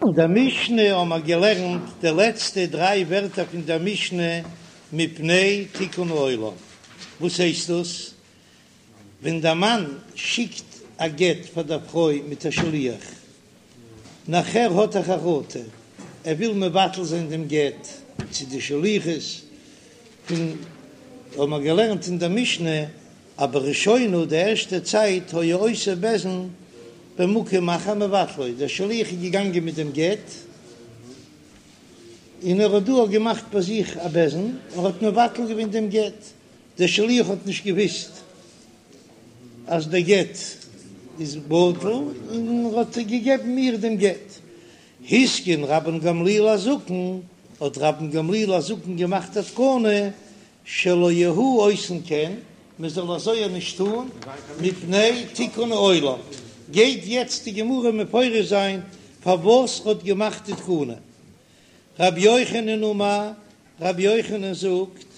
אין דער משנה האבן מיר געלערנט די לעצטע דריי ווערטער פון דער משנה מפני תיקון העולם. וואס הייסט דאס? ווען דער מאן שיקט א גט פאר דער פרוי מיט א שליח, נאכער האט ער חרטה, ער וויל מבטל זיין דעם גט צו די שליחות, פון האבן מיר געלערנט אין דער משנה אז בראשונה די ערשטע צייט היה עושה בית דין במקום אחר ומבטלו, דער שליח איז געגאנגען מיט דעם גט און ער האט דא געמאכט ביי זיך א בית דין און האט מבטל געווען דעם גט, דער שליח האט נישט געוויסט אז דער גט איז בטל און ער האט געגעבן איר דעם גט. התקין רבן גמליאל הזקן, האט רבן גמליאל הזקן געמאכט א תקנה שלא יהו עושין כן, מען זאל אזוי נישט טון, מפני תיקון העולם, גייט יעצט די גמרא מפרש זיין פארוואס ר'האט געמאכט די תקנה. רבי יוחנן אמר, רבי יוחנן זאגט,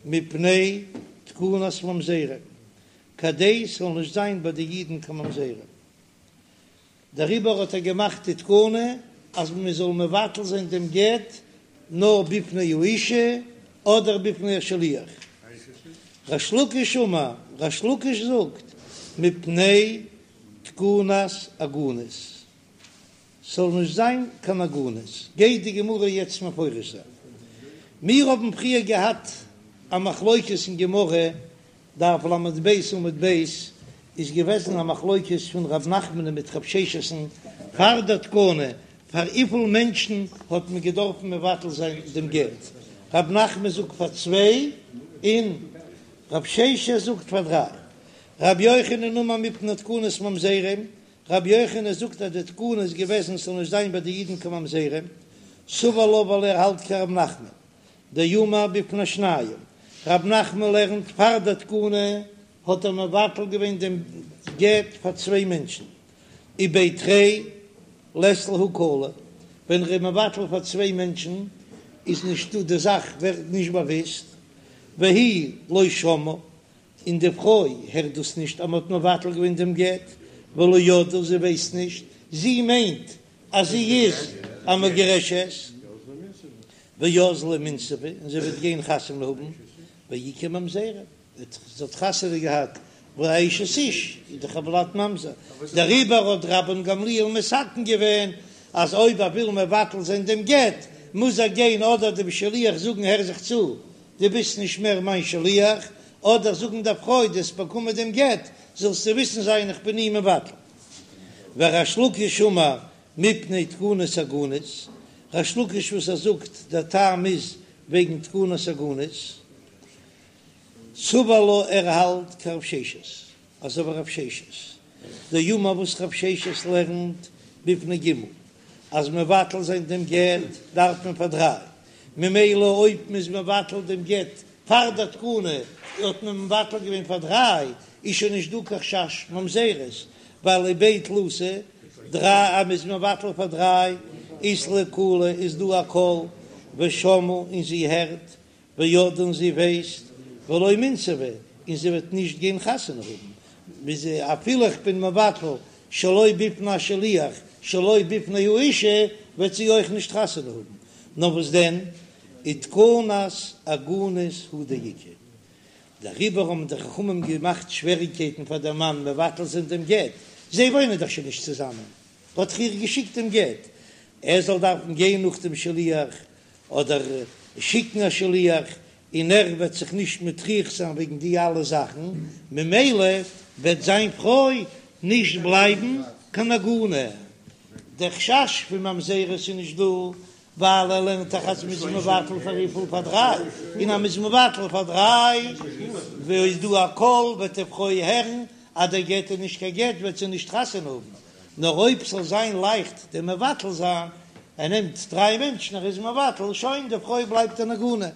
מפני תקנת ממזרים, כדי ס'זאל נישט זיין ביי די אידן קיין ממזרים. דעריבער האט ער געמאכט די תקנה אז מען זאל מבטל זיין דעם גט נאר בפני האישה אדער בפני השליח. ריש לקיש אמר, ריש לקיש זאגט, מפני תקנת עגונות, ס'זאל נישט זיין קיין עגונות, גייט די גמרא יעצט מפרש זיין. מיר האבן פריער געהאט א מחלוקת אין גמרא דף ל"ב עמוד ב' איז געוועזן א מחלוקת פון ר' נחמנ'ן מיט ר' ששת'ן פאר דער תקנה, פאר וויפיל מענטשן האט מען געדארפן מבטל זיין דעם גט, ר' נחמן זאגט פאר צוויי און ר' ששת זאגט פאר דריי. ר' יוחנן אמר מפני תקנת ממזרים, ר' יוחנן זאגט אז די תקנה איז געוועזן ס'זאל נישט זיין ביי די אידן קיין ממזרים, סבר לה ווייל ער האלט כר' נחמן. דאמר בפני שניים, רב נחמן לערנט פאר די תקנה האט ער מבטל געווען דעם גט פאר צוויי מענטשן, ובי תרי לית להו קלא, ווען ר'איז מבטל פאר צוויי מענטשן איז נישטא די זאך ווערט נישט באוויסט, והיא לא שמעה, און די פרוי הערט דאס נישט אז מ'האט מבטל געווען דעם גט, ולא ידעה זי ווייסט נישט, זי מיינט אז זי איז א מגורשת, ואזלה ומינסבא, און זי וועט גיין חתונה האבן, ואיכא ממזרים, זי האט חתונה געהאט ואשת איש איז דאך הולד ממזר, דעריבער האט רבן גמליאל מתקן געווען אז אויב ער וויל מבטל זיין דעם גט מוז ער גיין אדער דעם שליח זאגן הער זיך צו דו ביסט נישט מער מיין שליח, אדער זאגן דער פרוי דו האסט באקומען דעם גט זאלסטו וויסן זיין איך בין אים מבטל. וריש לקיש אמר מפני תקנת עגונות, ריש לקיש וואס ער זאגט דער טעם איז וועגן תקנת עגונות, סבר לה ער האלט כרב ששת, אזוי ווי רב ששת, דאמר וואס רב ששת לערנט בפני ג' אז מבטל זיין דעם גט דארף מען פאר דריי, ממילא אויב מ'איז מבטל דעם גט פאר דער תקנה האט מען מבטל געווען פאר דריי, איז שוין נישט דא קיין חשש ממזרות, ווייל ובי תלתא דריי אז מ'איז מבטל פאר דריי אית להו קלא איז דא א קול ושמעה און זי הערט וידעה און זי ווייסט ולא מינסבא און זי וועט נישט גיין חתונה האבן אפילו איך בין מבטל שלא בפני השליח שלא בפני האישה וועט זי אויך נישט חתונה האבן נאר וואס דען ותקנת עגונות הוא דאיכא דעריבער האבן די חכמים געמאכט שוועריגקייטן פאר דעם מאן מבטל זיין דעם גט, זיי וואוינען דאך שוין נישט צוזאמען, האט דאך איר געשיקט דעם גט, ער זאל דארפן גיין נאך דעם שליח אדער שיקן א שליח, און ער וועט זיך נישט מטריח זיין וועגן די אלע זאכן, ממילא וועט זיין פרוי נישט בלייבן קיין עגונה. דער חשש פון ממזרות איז נישט דא, ווייל ער לערנט דאך אז מ'איז מבטל פאר וויפיל? פאר דריי, און אז מ'איז מבטל פאר דריי וואו איז דא א קול וועט די פרוי הערן אז דער גט איז נישט קיין גט וועט זי נישט חתונה האבן, נאר אויב ס'זאל זיין לייכט דעם מבטל זיין, ער נעמט דריי מענטשן ער איז מבטל, שוין די פרוי בלייבט אן עגונה,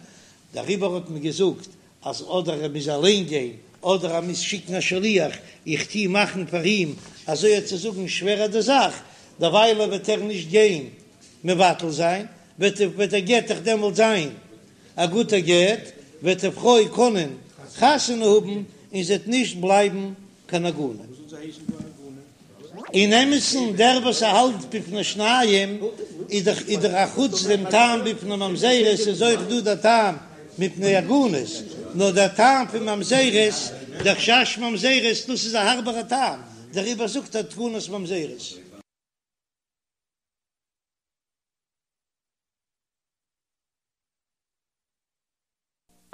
דעריבער האט מען געזאגט אז אדער ער מוז אליין גיין אדער ער מוז שיקן א שליח, איך טוה מאכן פאר אים אזוי צו זאגן שווערער די זאך, דערוויילע וועט ער נישט גיין מבטל זיין, וועט וועט דער גט דאך דעמאלט זיין א גוטער גט, וועט די פרוי קענען חתונה האבן און זי וועט נישט בלייבן קיין עגונה. אין אמת'ן דער וואס ער האלט בפני שניים. איז דאך איז דאך א חוץ דעם טעם מפני ממזרות איז אויך דא דער טעם מפני עגונות, נאר דער טעם פון ממזרות, דער חשש ממזרות, דאס איז א הארבערע טעם, דעריבער זאגט ער תקנת ממזרות.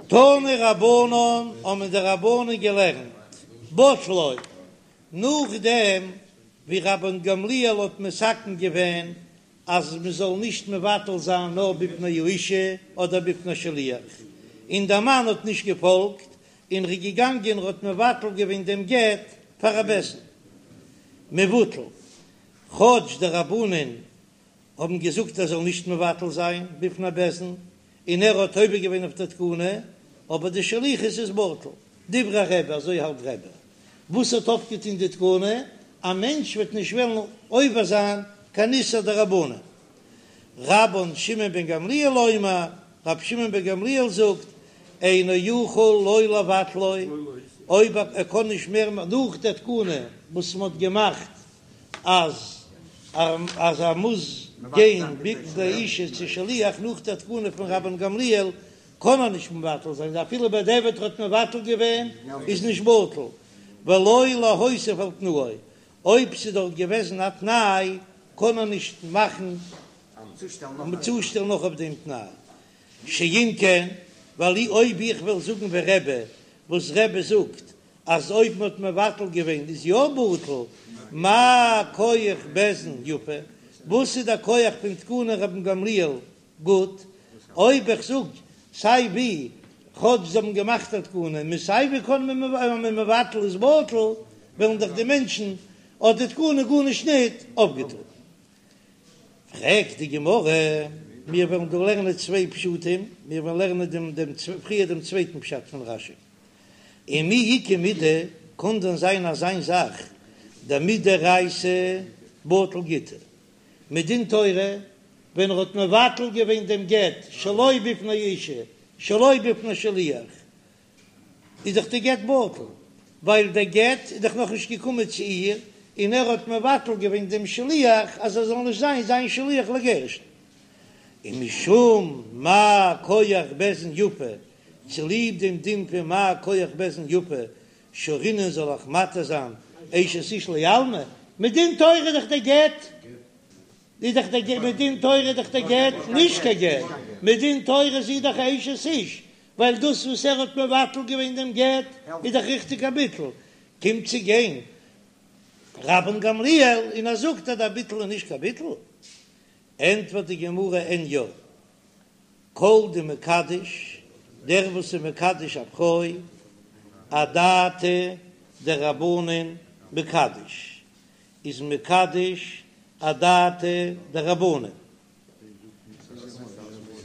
תנו רבנן האבן די רבנן געלערנט בטלו, נאכדעם ווי רבן גמליאל האט מתקן געווען אז מען זאל נישט מבטל זיין נאר בפני האישה אדער בפני שליח, און דער מאן האט נישט געפאלגט און ר'איז געגאנגען און ר'האט מבטל געווען דעם גט פאר א בית דין מבוטל, כאטש די רבנן האבן געזאגט ער זאל נישט מבטל זיין בפני בית דין, און ער האט עובר געווען אויף דער תקנה, אבער די שליחות איז בטל. דברי רבי, אזוי האלט רבי. וואס האט אויפגעטון די תקנה? א מענטש וועט נישט וועלן עובר זיין קיין איסור דרבנן. רבן שמעון בן גמליאל אומר, רבי שמעון בן גמליאל זאגט, אינו יכול לא לבטלו, אויב ער קען נישט מער נאך דער תקנה וואס מען האט געמאכט אז אז ער מוז גיין בפני האישה צו שליח נאך דער תקנה פון רבן גמליאל קען ער נישט מבטל זיין אפילו בדיעבד ער האט מבטל געווען איז נישט בטל ולא להוסיף על תנאו אויב ס'איז דארט געוועזן א תנאי קען ער נישט מאכן צושטעלן נאך אויף דעם תנאי שאם כן ווייל אויב איך וועל זאגן ווי רבי וואס רבי זאגט אז אויב מ'האט מבטל געווען איז יא בטל, מה כח בית דין יפה, וואס איז דער כח פון תקנת רבן גמליאל גוט, אויב איך זאג סיי ווי, כאטש זיי האבן געמאכט א תקנה, און סיי ווי קען מען אז מ'איז מבטל איז בטל, וועלן דאך די מענטשן האט די תקנה גארנישט ניט אויפגעטון. פרעגט די גמרא, מיר וועלן דא לערנען צוויי פשטים, מיר וועלן לערנען דעם דעם פריער דעם צווייטן פשט פון רשי. ומי איכא מידי, קאן דען זיין אזיין זאך דמדאורייתא בטיל גיטא? מדין תורה ווען ער האט מבטל געווען דעם גט שלא בפני אישה שלא בפני שליח איז דאך די גט בטל, ווייל דער גט איז דאך נאכנישט געקומען צו איר, און ער האט מבטל געווען דעם שליח אז ער זאל נישט זיין זיין שליח לגירושין. ומשום מה כח בית דין יפה, צוליב דעם דין פון מה כח בית דין יפה, שרינן זאל איך מתיר זיין אשת איש לעלמא, מדין תורה איז דאך דער גט, איז דאך דער גט, מדין תורה איז דאך דער גט נישט קיין גט, מדין תורה איז זי דאך א אשת איש, ווייל דאס וואס ער האט מבטל געווען דעם גט איז דאך ריכטיג א ביטול, קומט צו גיין רבן גמליאל און ער זאגט אז דער ביטול איז נישט קיין ביטול, ענטפערט די גמרא אין יא, כל דמקדש, דער וואס איז מקדש א פרוי, אדעתא דרבנן מקדש, איז מקדש אדעתא דרבנן,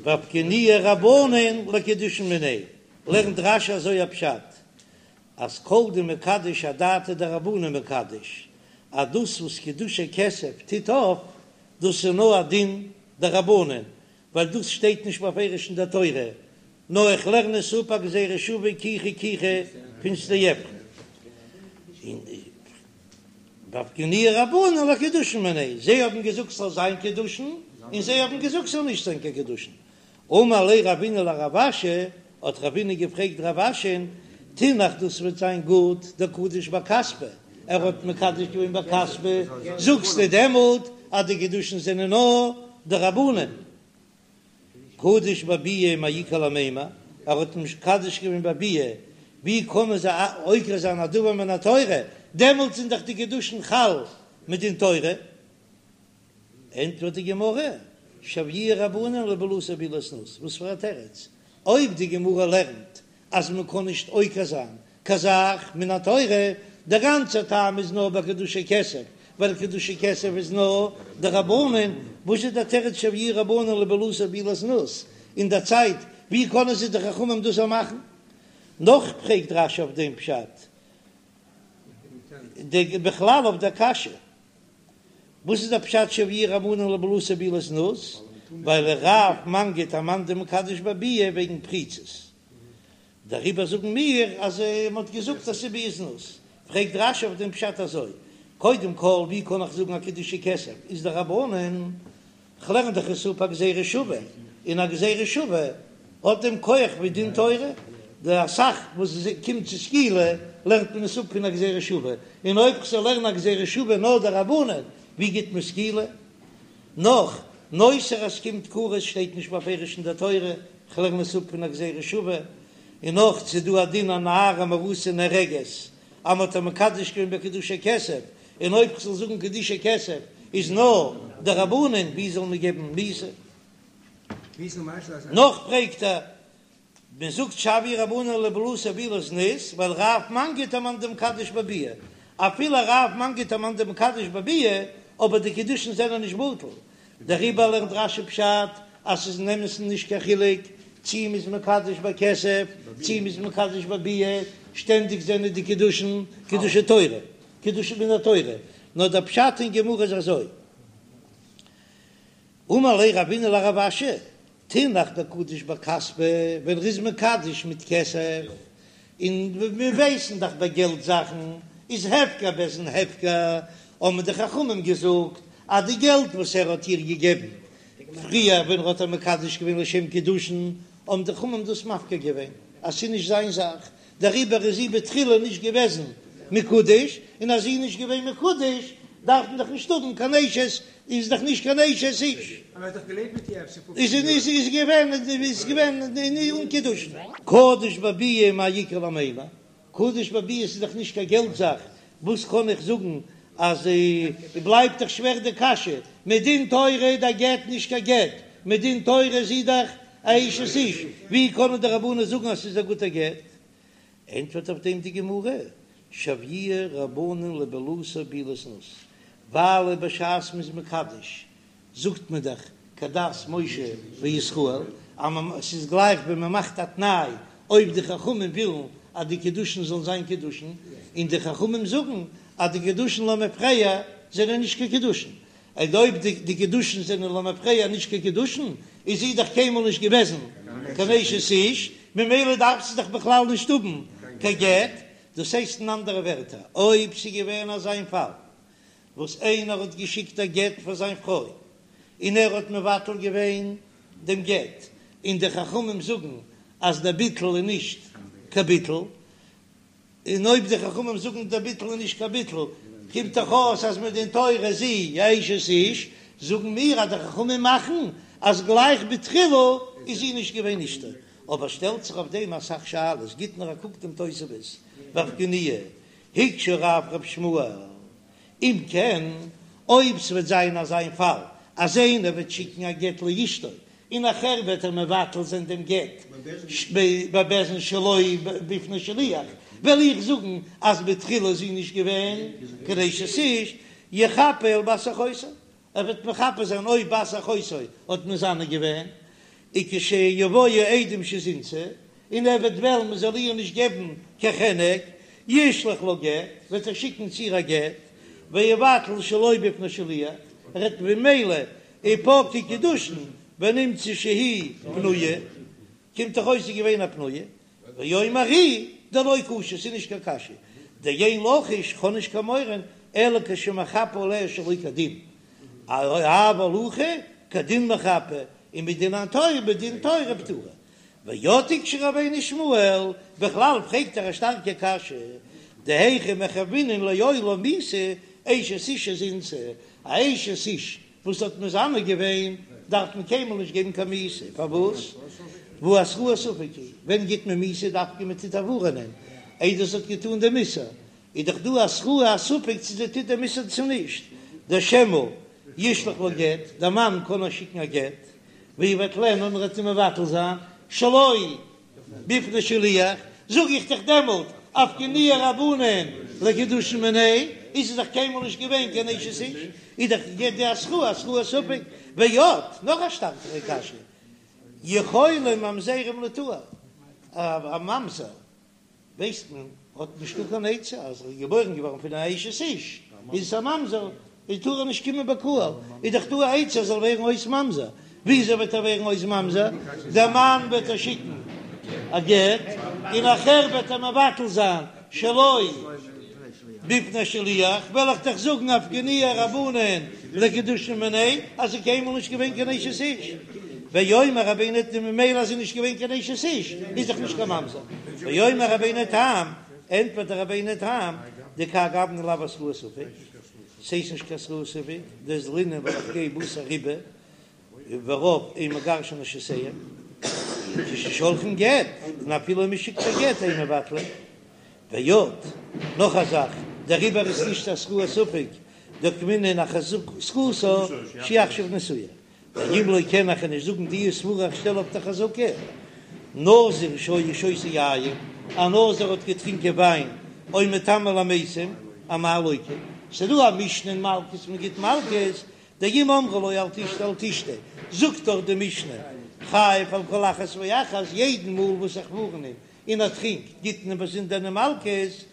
ואפקעינהו רבנן לקידושין מיניה, לערנט רש"י אזוי א פשט, אז כל דמקדש אדעתא דרבנן מקדש, אז דאס וואס קידושי כסף טוט אויף, דאס איז נאר א דין דרבנן, ווייל דאס שטייט נישט בפירוש אין דער תורה, נאר איך לערן עס אפ א גזירה שווה קיחה קיחה פון שדה עפרון. און ואפקעינהו רבנן לקידושין מיניה, זיי האבן געזאגט ס'זאל זיין קידושין, און זיי האבן געזאגט ס'זאל נישט זיין קיין קידושין. אמר ליה רבינא לרב אשי, האט רבינא געפרעגט רב אשי'ן, תינח דאס וועט זיין גוט דקדיש בכספא, ער האט מקדש געווען בכספא, זאגסטו דעמאלט אז די קידושין זענען נאר דרבנן? קדיש בביאה מאי איכא למימר, ער האט מקדש געווען בביאה, ווי קענען זיי עוקר זיין א דבר מן התורה, דעמאלט זענען דאך די קידושין חל מדין תורה. ענטפערט די גמרא, שויוה רבנן לבעילתו בעילת זנות, וואס פאר א תירוץ? אויב די גמרא לערנט אז מען קען נישט עוקר זיין קיין זאך מן התורה, דער גאנצער טעם איז נאר ביי קידושי כסף, ווייל קידושי כסף איז נאר דרבנן, וואס איז דער תירוץ שויוה רבנן לבעילתו בעילת זנות אין דער צייט, ווי קענען זיי די חכמים דאס מאכן? נאך פרעגט רש"י אויף דעם פשט, די בכלל אויף דער קשיא. וואס איז דער פשט שויוה רבנן לבעילתו בעילת זנות? ווייל רב מנגיד אמאן דמקדש בביאה וועגן פריצות, דעריבער זאגן מיר אז מען האט געזאגט אז ס'איז ביאת זנות. פרעגט רש"י אויף דעם פשט אזוי, קודם כל ווי קען איך זאגן אז קידושי כסף איז דרבנן? כ'לערן דאך עס אפ א גזירה שווה, און א גזירה שווה האט דעם כח ווי דין תורה, די אסאך וואס קומט צו סקילה לערנט מען עס אפ פון א גזירה שווה, און אויב כ'זאל לערנען א גזירה שווה נאר דרבנן, ווי גיט מען סקילה? נאך, נותר אז ס'קומט כרת שטייט נישט בפירוש אין דער תורה, כ'לערן עס אפ פון א גזירה שווה, און נאך ס'דא א דין א נערה מאורסה נהרגת אז מ'האט איר מקדש געווען בקידושי כסף, און אויב כ'זאל זאגן קידושי כסף איז נאר דרבנן, ווי זאל מען געבן מיתה? נאך פרעגט ער, מען זאגט שויוה רבנן לבעילתו בעילת זנות, ווייל רב מנגיד אמאן דמקדש בביאה, אפילו רב מנגיד אמאן דמקדש בביאה, אבער די קידושין זענען נישט בטל, דעריבער לערנט רש"י פשט אז ס'איז אין אמת'ן נישט קיין חילוק צי מ'איז מקדש בכסף צי מ'איז מקדש בביאה, שטענדיג זענען די קידושין קידושי תורה, קידושין מן התורה, נאר דער פשט אין גמרא איז אזוי. אמר ליה רבינא לרב אשי, תינח דקדיש בכספא, ווען ר'איז מקדש מיט כסף, און מיר ווייסן דאך ביי געלט זאכן איז הפקר בית דין הפקר, האבן די חכמים געזאגט אז די געלט וואס ער האט איר געגעבן פריער ווען ר'האט איר מקדש געווען לשם קידושין, האבן די חכמים דאס מפקיר געווען אז ס'איז נישט זיין זאך, דעריבער איז זי בתחילה נישט געוועזן מקודש, און אז זי איז נישט געווען מקודש דארף מען דאך נישט האבן קיין אשת, איז דאך נישט קיין אשת איש. אבער ער האט דאך געלעבט מיט איר אפשר פופצן איז יאר. איז איז געווען איז געווען אן קידושין. קדיש בביאה מאי איכא למימר, קדיש בביאה איז דאך נישט קיין געלט זאך, וואס קען איך זאגן אז בלייבט דאך שווער די קשיא, מדין תורה איז דער גט נישט קיין גט, מדין תורה איז זי דאך א אשת איש, ווי קענען די רבנן זאגן אז ס'איז א גוטער גט? ענטפערט אויף דעם די גמרא, שויוה רבנן לבעילתו בעילת זנות, ווייל בשעת מ'איז מקדש זאגט מען דאך כדת משה וישראל, אז ס'איז גלייך ווען מ'מאכט א תנאי אויב די חכמים ווילן אז די קידושין זאלן זיין קידושין, און די חכמים זאגן אז די קידושין למפרע זענען נישט קיין קידושין, און אויב די קידושין זענען למפרע נישט קיין קידושין, איז זי דאך קיינמאל נישט געוועזן קיין אשת איש, ממילא דארף זי דאך בכלל נישט האבן קיין גט, דאס הייסט אין אנדערע ווערטער, אויב ס'איז געווען אזא פאל וואס איינער האט געשיקט א גט פאר זיין פרוי און ער האט מבטל געווען דעם גט, און די חכמים זאגן אז דער ביטול איז נישט קיין ביטול, און אויב די חכמים זאגן דער ביטול איז נישט קיין ביטול, קומט דאך אויס אז מדין תורה איז זי א אשת איש, זאגן מיר אז די חכמים מאכן אז גלייך בתחילה איז זי נישט געווען אשתו. אבער שטעלט זיך אויף דעם אסאך שאלות, גיט נאר א קוק דעם תוספות ואפקעינהו, הקשה רב רב שמואל, אם כן, אויב ס'וועט זיין אזא פאל אז איינער וועט שיקן א גט לאשתו און נאכער וועט ער מבטל זיין דעם גט בבית דין שלא בפני שליח, וועל איך זאגן אז בתחילה איז זי נישט געווען קיין אשת איש, יחפה על בת אחותו, ער וועט מחפה זיין אויב בת אחותו האט מזנה געווען, וכשיבואו עדים שזינתה, און ער וועט וועלן מען זאל איר נישט געבן קיין חנק, ישלח לה גט, וועט ער שיקן צו איר א גט, ויבטל שלא בפני שליח, ער וועט ממילא ופקעי קידושין ונמצא שהיא פנויה, קומט דאך אויס זי איז געווען א פנויה, ואומר הוא דלא קשה, ס'איז נישט קיין קשיא, דאין לחוש, כ'האב נישט קיין מורא, אלא כשמחפה עליה שלא כדין, אבל הכא כדין מחפה, און מדין התורה בדין תורה פטורה. ועוד הקשה רבינו שמואל, בכלל פרעגט ער א שטארקע קשיא, דהיכא מחייבינן לעולם מיתה אשת איש שזינתה, א אשת איש וואס האט מזנה געווען דארף מען קיינמאל נישט געבן קיין מיתה, פארוואס? והא התראת ספק היא, ווען גיט מען מיתה דווקא מען טוט איר ווארענען איידער זי האט געטאן דעם איסור, איז דאך דא התראה א ספק צו זי טוט דעם איסור צו נישט, דשמא ישלח לה גט, דער מאן קען איר שיקן א גט, ויבטלנה און ער וועט איר מבטל זיין שלא בפני שליח, זאג איך דאך דעמאלט אפקעינהו רבנן לקידושין מיניה, איז זי דאך קיינמאל נישט געווען קיין אשת איש, איז דאך געווען די התראה התראת ספק, ועוד, נאך א שטארקערע קשיא, יכולים ממזרים ליטהר, א ממזר ווייסט מען האט נישטא קיין עצה אז ער איז געבוירן געווארן פון א אשת איש איז עס א ממזר איז טאר ער נישט קומען בקהל איז דאך דא א עצה ער זאל ווערן אויס ממזר וויאזוי וועט ער ווערן אויס ממזר דער מאן וועט איר שיקן א גט און נאכער וועט ער מבטל זיין שלא בפני שליח וועל איך דאך זאגן אפקעינהו רבנן. לקידושין מיניה אז זי איז קיינמאל נישט געווען קיין אשת איש, ואומר רבינו תם ממילא אז זי איז נישט געווען קיין אשת איש איז דאך נישט קיין ממזר, ואומר רבינו תם, ענטפערט דער רבינו תם, דכהאי גוונא לאו התראת ספק, ס'איז נישט קיין התראת ספק, דאזלינן ווייל איך גיי בתר רובא ורוב אין מגרשין נשותיהם, כששולחין גט, און אפילו מ'שיקט א גט אין מבטלין. ועוד, נאך א זאך, דעריבער איז נישט התראת ספק דאוקמינן אחזקתה שעכשיו נשואה. ואם לא כן איך קען נישט זאגן די סברא איך שטעל אויף די חזקה. נזיר שהיה שותה יין, א נזיר האט געטרינקען וויין, או מטמא למתים, אמאי לוקה. ס'דא א משנה אין מלקות מ'גיט מלקות, דאם אמרו לו אל תשתה אל תשתה, זאגט דאך די משנה חייב על כל אחת ואחת, יעדן מאל וואס איך ווארן אים און ער טרינקט, גיט מען אים באזונדערנע מלקות,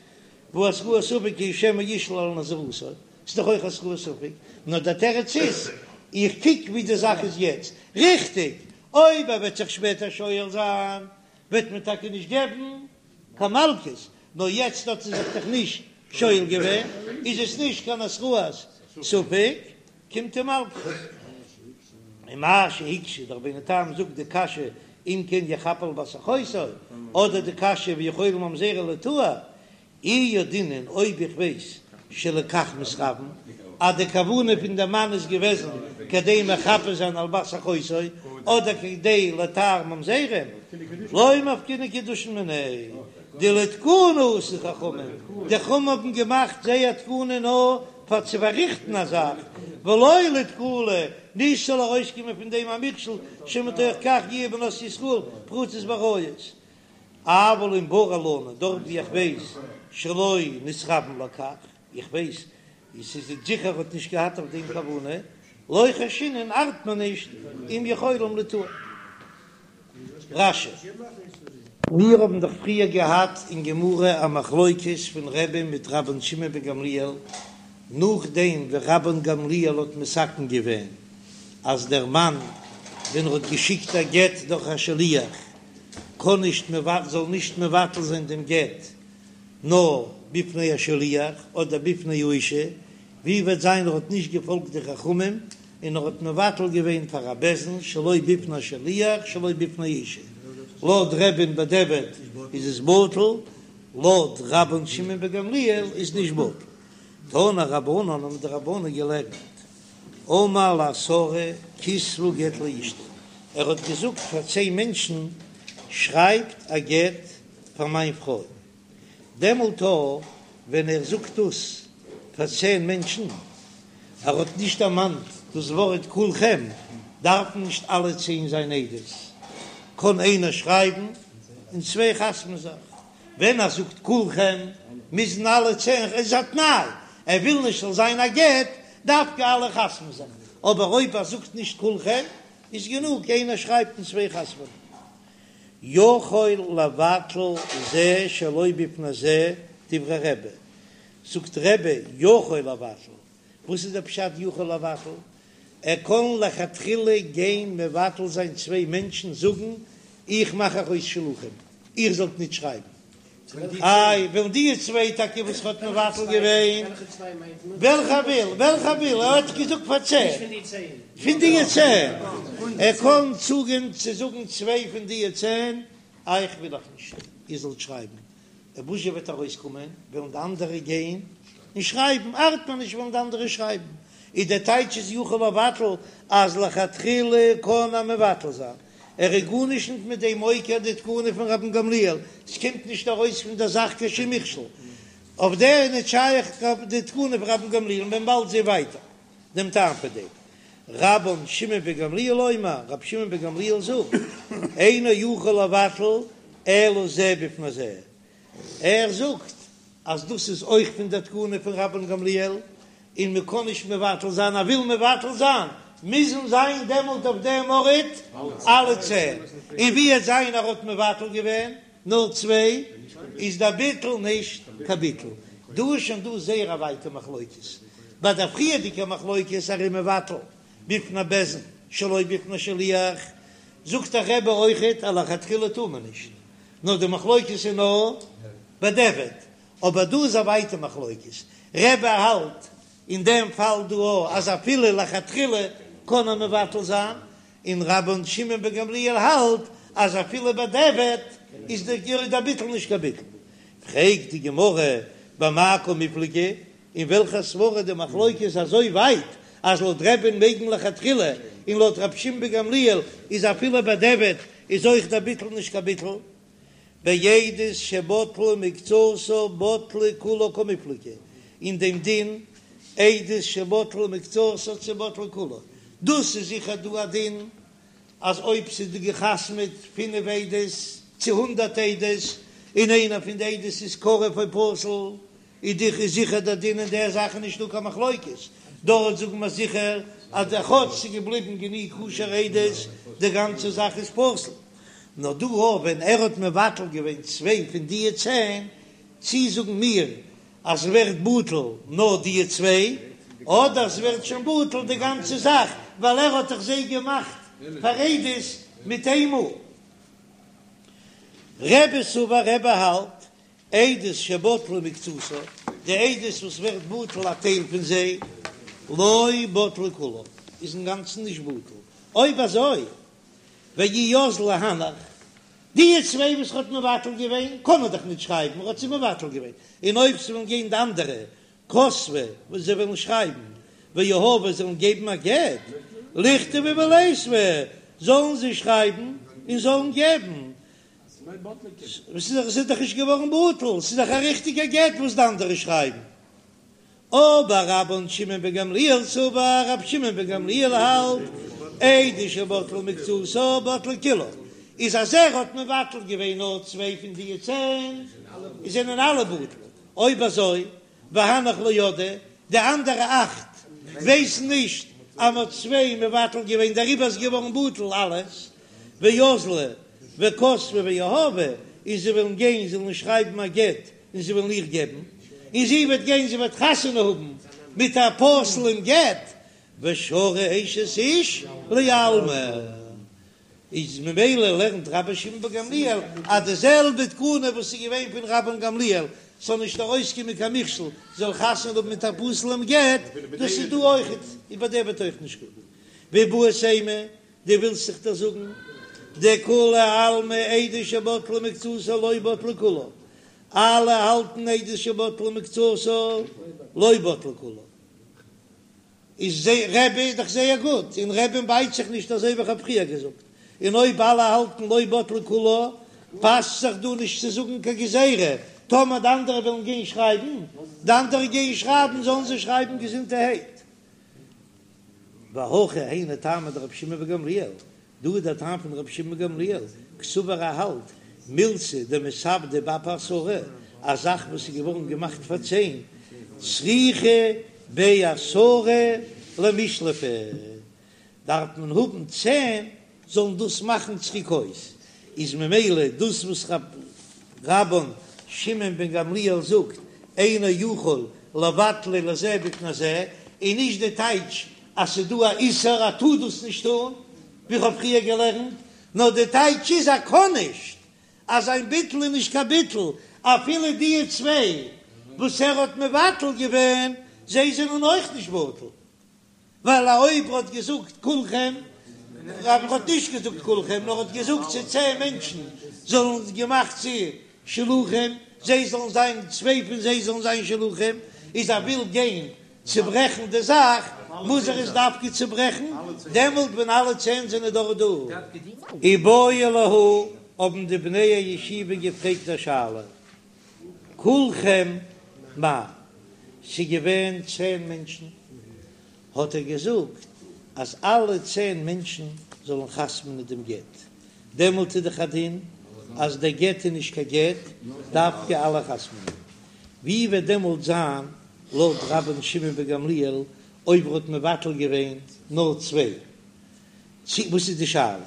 והא התראת ספק היא שמא ישאל על נזירותו, ס'איז דאך אויך התראת ספק, נאר דער תירוץ איז, איך קוק ווי די זאך איז יעצט, ריכטיג, אויב ער וועט זיך שפעטער שואל זיין, וועט מען טאקע נישט געבן קיין מלקות, נאר יעצט האט ער זיך דאך נישט שואל געווען, איז עס נישט קיין התראת ספק, קומט אים מלקות. ומה שהקשה דער רבינו תם זאגט די קשיא אם כן יחפה על בת אחותו, אדער די קשיא ויכולים ממזרים ליטהר, אי ידעינן אויב איך ווייס שלכך מתכוון אז די כוונה פון די מאן איז געוועזן כדי מחפה זיין על בת אחותו אדער כדי לטהר ממזרים, לא מפקינן קידושין מיניה, דלתקנה עשו חכמים, די חכמים האבן געמאכט זייער תקנה נאר פאר צו פארריכטן א זאך, ולא לתקלה, נישט ס'זאל ארויסקומען פון דעם א מכשול שמתוך כך יהיו בנות ישראל פרוצות בעריות. אבל אם ברור לנו, דארט ווי איך ווייס שלא נתכוון לכך, איך ווייס עס איז זיכער האט נישט געהאט אויף דעם כוונה, לא חיישינן ארט מען נישט אם יכולים ליטהר. רש"י. מיר האבן דאך פריער געהאט אין גמרא א מחלוקת פון רבי'ן מיט רבן שמעון בן גמליאל, נאכדעם ווי רבן גמליאל האט מתקן געווען אז דער מאן ווען ער האט געשיקט א גט דורך א שליח קען נישט זאל נישט מבטל זיין דעם גט נאר בפני השליח אדער בפני האישה, ווי וועט זיין ער האט נישט געפאלגט די חכמים און ער האט מבטל געווען פאר א בית דין שלא בפני השליח שלא בפני האישה, לויט רבי'ן בדיעבד איז עס בטל, לויט רבן שמעון בן גמליאל איז נישט בטל. תנו רבנן האבן די רבנן געלערנט, אמר לעשרה כתבו גט לאשתי, ער האט געזאגט פאר צען מענטשן שרייבט א גט פאר מיין פרוי, דעמאלט ווען ער זאגט דאס פאר צען מענטשן, ער האט נישט דערמאנט דאס ווארט כולכם, דארפן נישט אלע צען זיין עדות, קען איינער שרייבן און צוויי חתמ'ן זיך, ווען ער זאגט כולכם מוזן אלע צען, איז א תנאי, ער וויל נישט ס'זאל זיין א גט, דווקא אלע חתמ'ן זיך, אבער אויב ער זאגט נישט כולכם איז גענוג איינער שרייבט און צוויי חתמ'ן. יכול לבטל זה שלא בפני זה דברי רבי, זאגט רבי יכול לבטל, וואס איז דער פשט יכול לבטל? ער קען לכתחילה גיין מבטל זיין צוויי מענטשן זאגן איך מאך אייך אויס שלוחים איר זאלט נישט שרייבן, איי וועלן די צוויי טאקע וואס ער האט מבטל געווען, וועלכע וויל וועלכע וויל ער האט געזאגט פאר צען פון די צען, ער קען צוגיין צו זאגן צוויי פון די צען אייך וויל איך נישט איר זאלט שרייבן, און וואס זשע וועט ארויסקומען, וועלן די אנדערע גיין און שרייבן, ארט מיר נישט וועלן די אנדערע שרייבן, איז דער טייטש איז יכול לבטל אז לכתחילה קען ער מבטל זיין, ער איז גארנישט נישט מיט דעם עוקר די תקנה פון רבן גמליאל, ס'קומט נישט ארויס פון דער זאך קיין שום מכשול, אויף דער איז נישט שייך די תקנה פון רבן גמליאל, און מען באלד זען ווייטער דעם טעם פון דעם. רבן שמעון בן גמליאל אומר, רבי שמעון בן גמליאל זאגט, אינו יכול לבטל אלא זה בפני זה, ער זאגט אז דאס איז אויך פון דער תקנה פון רבן גמליאל, און מען קען נישט מבטל זיין, ער וויל מבטל זיין, מוזן זיין דעמאלט אויף דעם ארט אלע צען, און ווי עט זיין ער האט מבטל געווען נאר צוויי, איז דער ביטול נישט קיין ביטול. דא איז שוין דא זייער א ווייטע מחלוקת, ביי דער פריערדיגע מחלוקת ער איז מבטל בפני בית דין שלא בפני שליח, זאגט דער רבי אויכעט אז לכתחילה טאר מען נישט, נאר די מחלוקת איז נאר בדיעבד, אבער דא איז א ווייטע מחלוקת, רבי האלט. אין דעם פאל דא אויך אז אפילו לכתחילה קען ער מבטל זיין, און רבן שמעון בן גמליאל האלט אז אפילו בדיעבד איז דער ביטול נישט קיין ביטול. פרעגט די גמרא במאי קמיפלגי, אין וועלכע סברא די מחלוקת איז אזוי ווייט אז לויט רבי'ן מעג מען לכתחילה און לויט רבי שמעון בן גמליאל איז אפילו בדיעבד איז אויך דער ביטול נישט קיין ביטול. בעדות שבטלה מקצתה בטלה כולה קמיפלגי, אין דעם דין עדות שבטלה מקצתה צו בטלה כולה, דאס איז זיכער דא א דין אז אויב ס'איז דא געחתמעט פינף עדות צו הונדערט עדות און איינער פון די עדות איז קרוב או פסול איז דאך איז זיכער דער דין אין דער זאך איז נישטא קיין מחלוקת, דארט זאגן מיר זיכער אז דער כאטש ס'איז געבליבן גענוג כשר'ע עדות די גאנצע זאך איז פסול. נאר דא אויך ווען ער האט מבטל געווען צוויי פון דיע צען, צי זאגן מיר אז ס'ווערט בטל נאר דיע צוויי, אדער ס'ווערט שוין בטל די גאנצע זאך ווייל ער האט דאך זיי געמאכט פאר עדות מיט איינמאל. רבי סבר רבי האלט עדות שבטלה מקצתה, די עדות וואס ווערט בטל א טייל פון זיי, לא בטלה כולה, איז אינגאנצן נישט בטל, אויב אזוי ואי אזלי הנך, די צוויי וואס ער האט מבטל געווען קען מען דאך נישט שרייבן, ער האט זיי מבטל געווען, און אויב ס'וועלן גיין די אנדערע כתבי וואס זיי וועלן שרייבן, ויהבו זאלן געבן א גט, ליכתבו וליתבו זאלן זיי שרייבן און זאלן געבן, ס'איז דאך נישט געווארן בטל, ס'איז דאך א ריכטיגע גט וואס די אנדערע שרייבן. אבער רבן שמעון בן גמליאל סבר, רבי שמעון בן גמליאל האלט, עדות שבטלה מקצתה בטלה כולה, איז אז ער האט מבטל געווען נאר צוויי פון די צען, זענען אלע בטל, אויב אזוי והנך לא ידעי, די אנדערע אכט ווייסן נישט אז מ'האט צוויי מבטל געווען דעריבער איז געווארן בטל אלעס, ואזלי וכתבי ויהבי, און זיי וועלן גיין זיי וועלן שרייבן א גט און זיי וועלן איר געבן, און זי וועט גיין זי וועט חתונה האבן מיט א פסול'ן גט, ושרי אשת איש לעלמא. איז ממילא לערנט רבי שמעון בן גמליאל אז די זעלבע תקנה וואס איז געווען פון רבן גמליאל ס'זאל נישט ארויסקומען קיין מכשול זאל חתונה האבן מיט א פסול'ן גט, דאס איז דא אויכעט, איז בדיעבד אויך נישט גוט. ואיבעית אימא, דו ווילסט זיך דאך זאגן דכולי עלמא עדות שבטלה מקצתה לא בטלה כולה, אלע האלטן עדות שבטלה מקצתה לא בטלה כולה. איז רבי איז דאך זייער גוט, אין רבי'ן בייט זיך נישט אזוי ווי כ'האב פריער געזאגט, און אויב אלע האלטן לא בטלה כולה, פאסט זיך דא נישט צו זאגן קיין גזירה, טאמער די אנדערע ווילן גיין שרייבן, די אנדערע גייען שרייבן זאלן זיי שרייבן געזונטערהייט. והכא היינו טעמא דרבי שמעון בן גמליאל, דא איז דער טעם פון רבי שמעון גמליאל, קסבר ער האלט, מילתא דמתעבדא באפי עשרה, א זאך וואס איז געווארן געמאכט פאר צען, צריכי בי עשרה למישלפה, דארף מען האבן צען זאלן דאס מאכן צוריק אויס, איז ממילא דאס וואס רבן שמעון בן גמליאל זאגט אינו יכול לבטלה לזה בפני זה, איז נישט די טייטש אז ס'איז דא א איסור ער טאר דאס נישט טון, ווי כ'האב פריער געלערנט, נאר די טייטש איז ער קען נישט, אז זיין ביטול איז נישט קיין ביטול, אפילו די צוויי וואס ער האט מבטל געווען, זיי זענען אויך נישט בטל, ווייל אויב ער האט געזאגט כולכם, ער האט נישט געזאגט כולכם, נאר האט געזאגט צו צען מענטשן זאלן געמאכט צו שלוחים, זיי זאלן זיין, צוויי פון זיי זאלן זיין שלוחים, איז ער וויל גיין צוברעכן די זאך, מוז ער עס דווקא צוברעכן דעמאלט ווען אלע צען זענען דאך דא. איבעיא להו, האבן די בני הישיבה געפרעגט א שאלה, כולכם מאי? ס'געווען צען מענטשן, האט ער געזאגט אז אלע צען מענטשן זאלן חתמ'נען דעם גט, דעמאלט איז דאך א דין אז דער גט איז נישט קיין גט, דווקא אלע חתמ'נען. ווי וועט דעמאלט זיין לויט רבן שמעון בן גמליאל אויב ער האט מבטל געווען נאר צוויי? צו וואס איז די שאלה?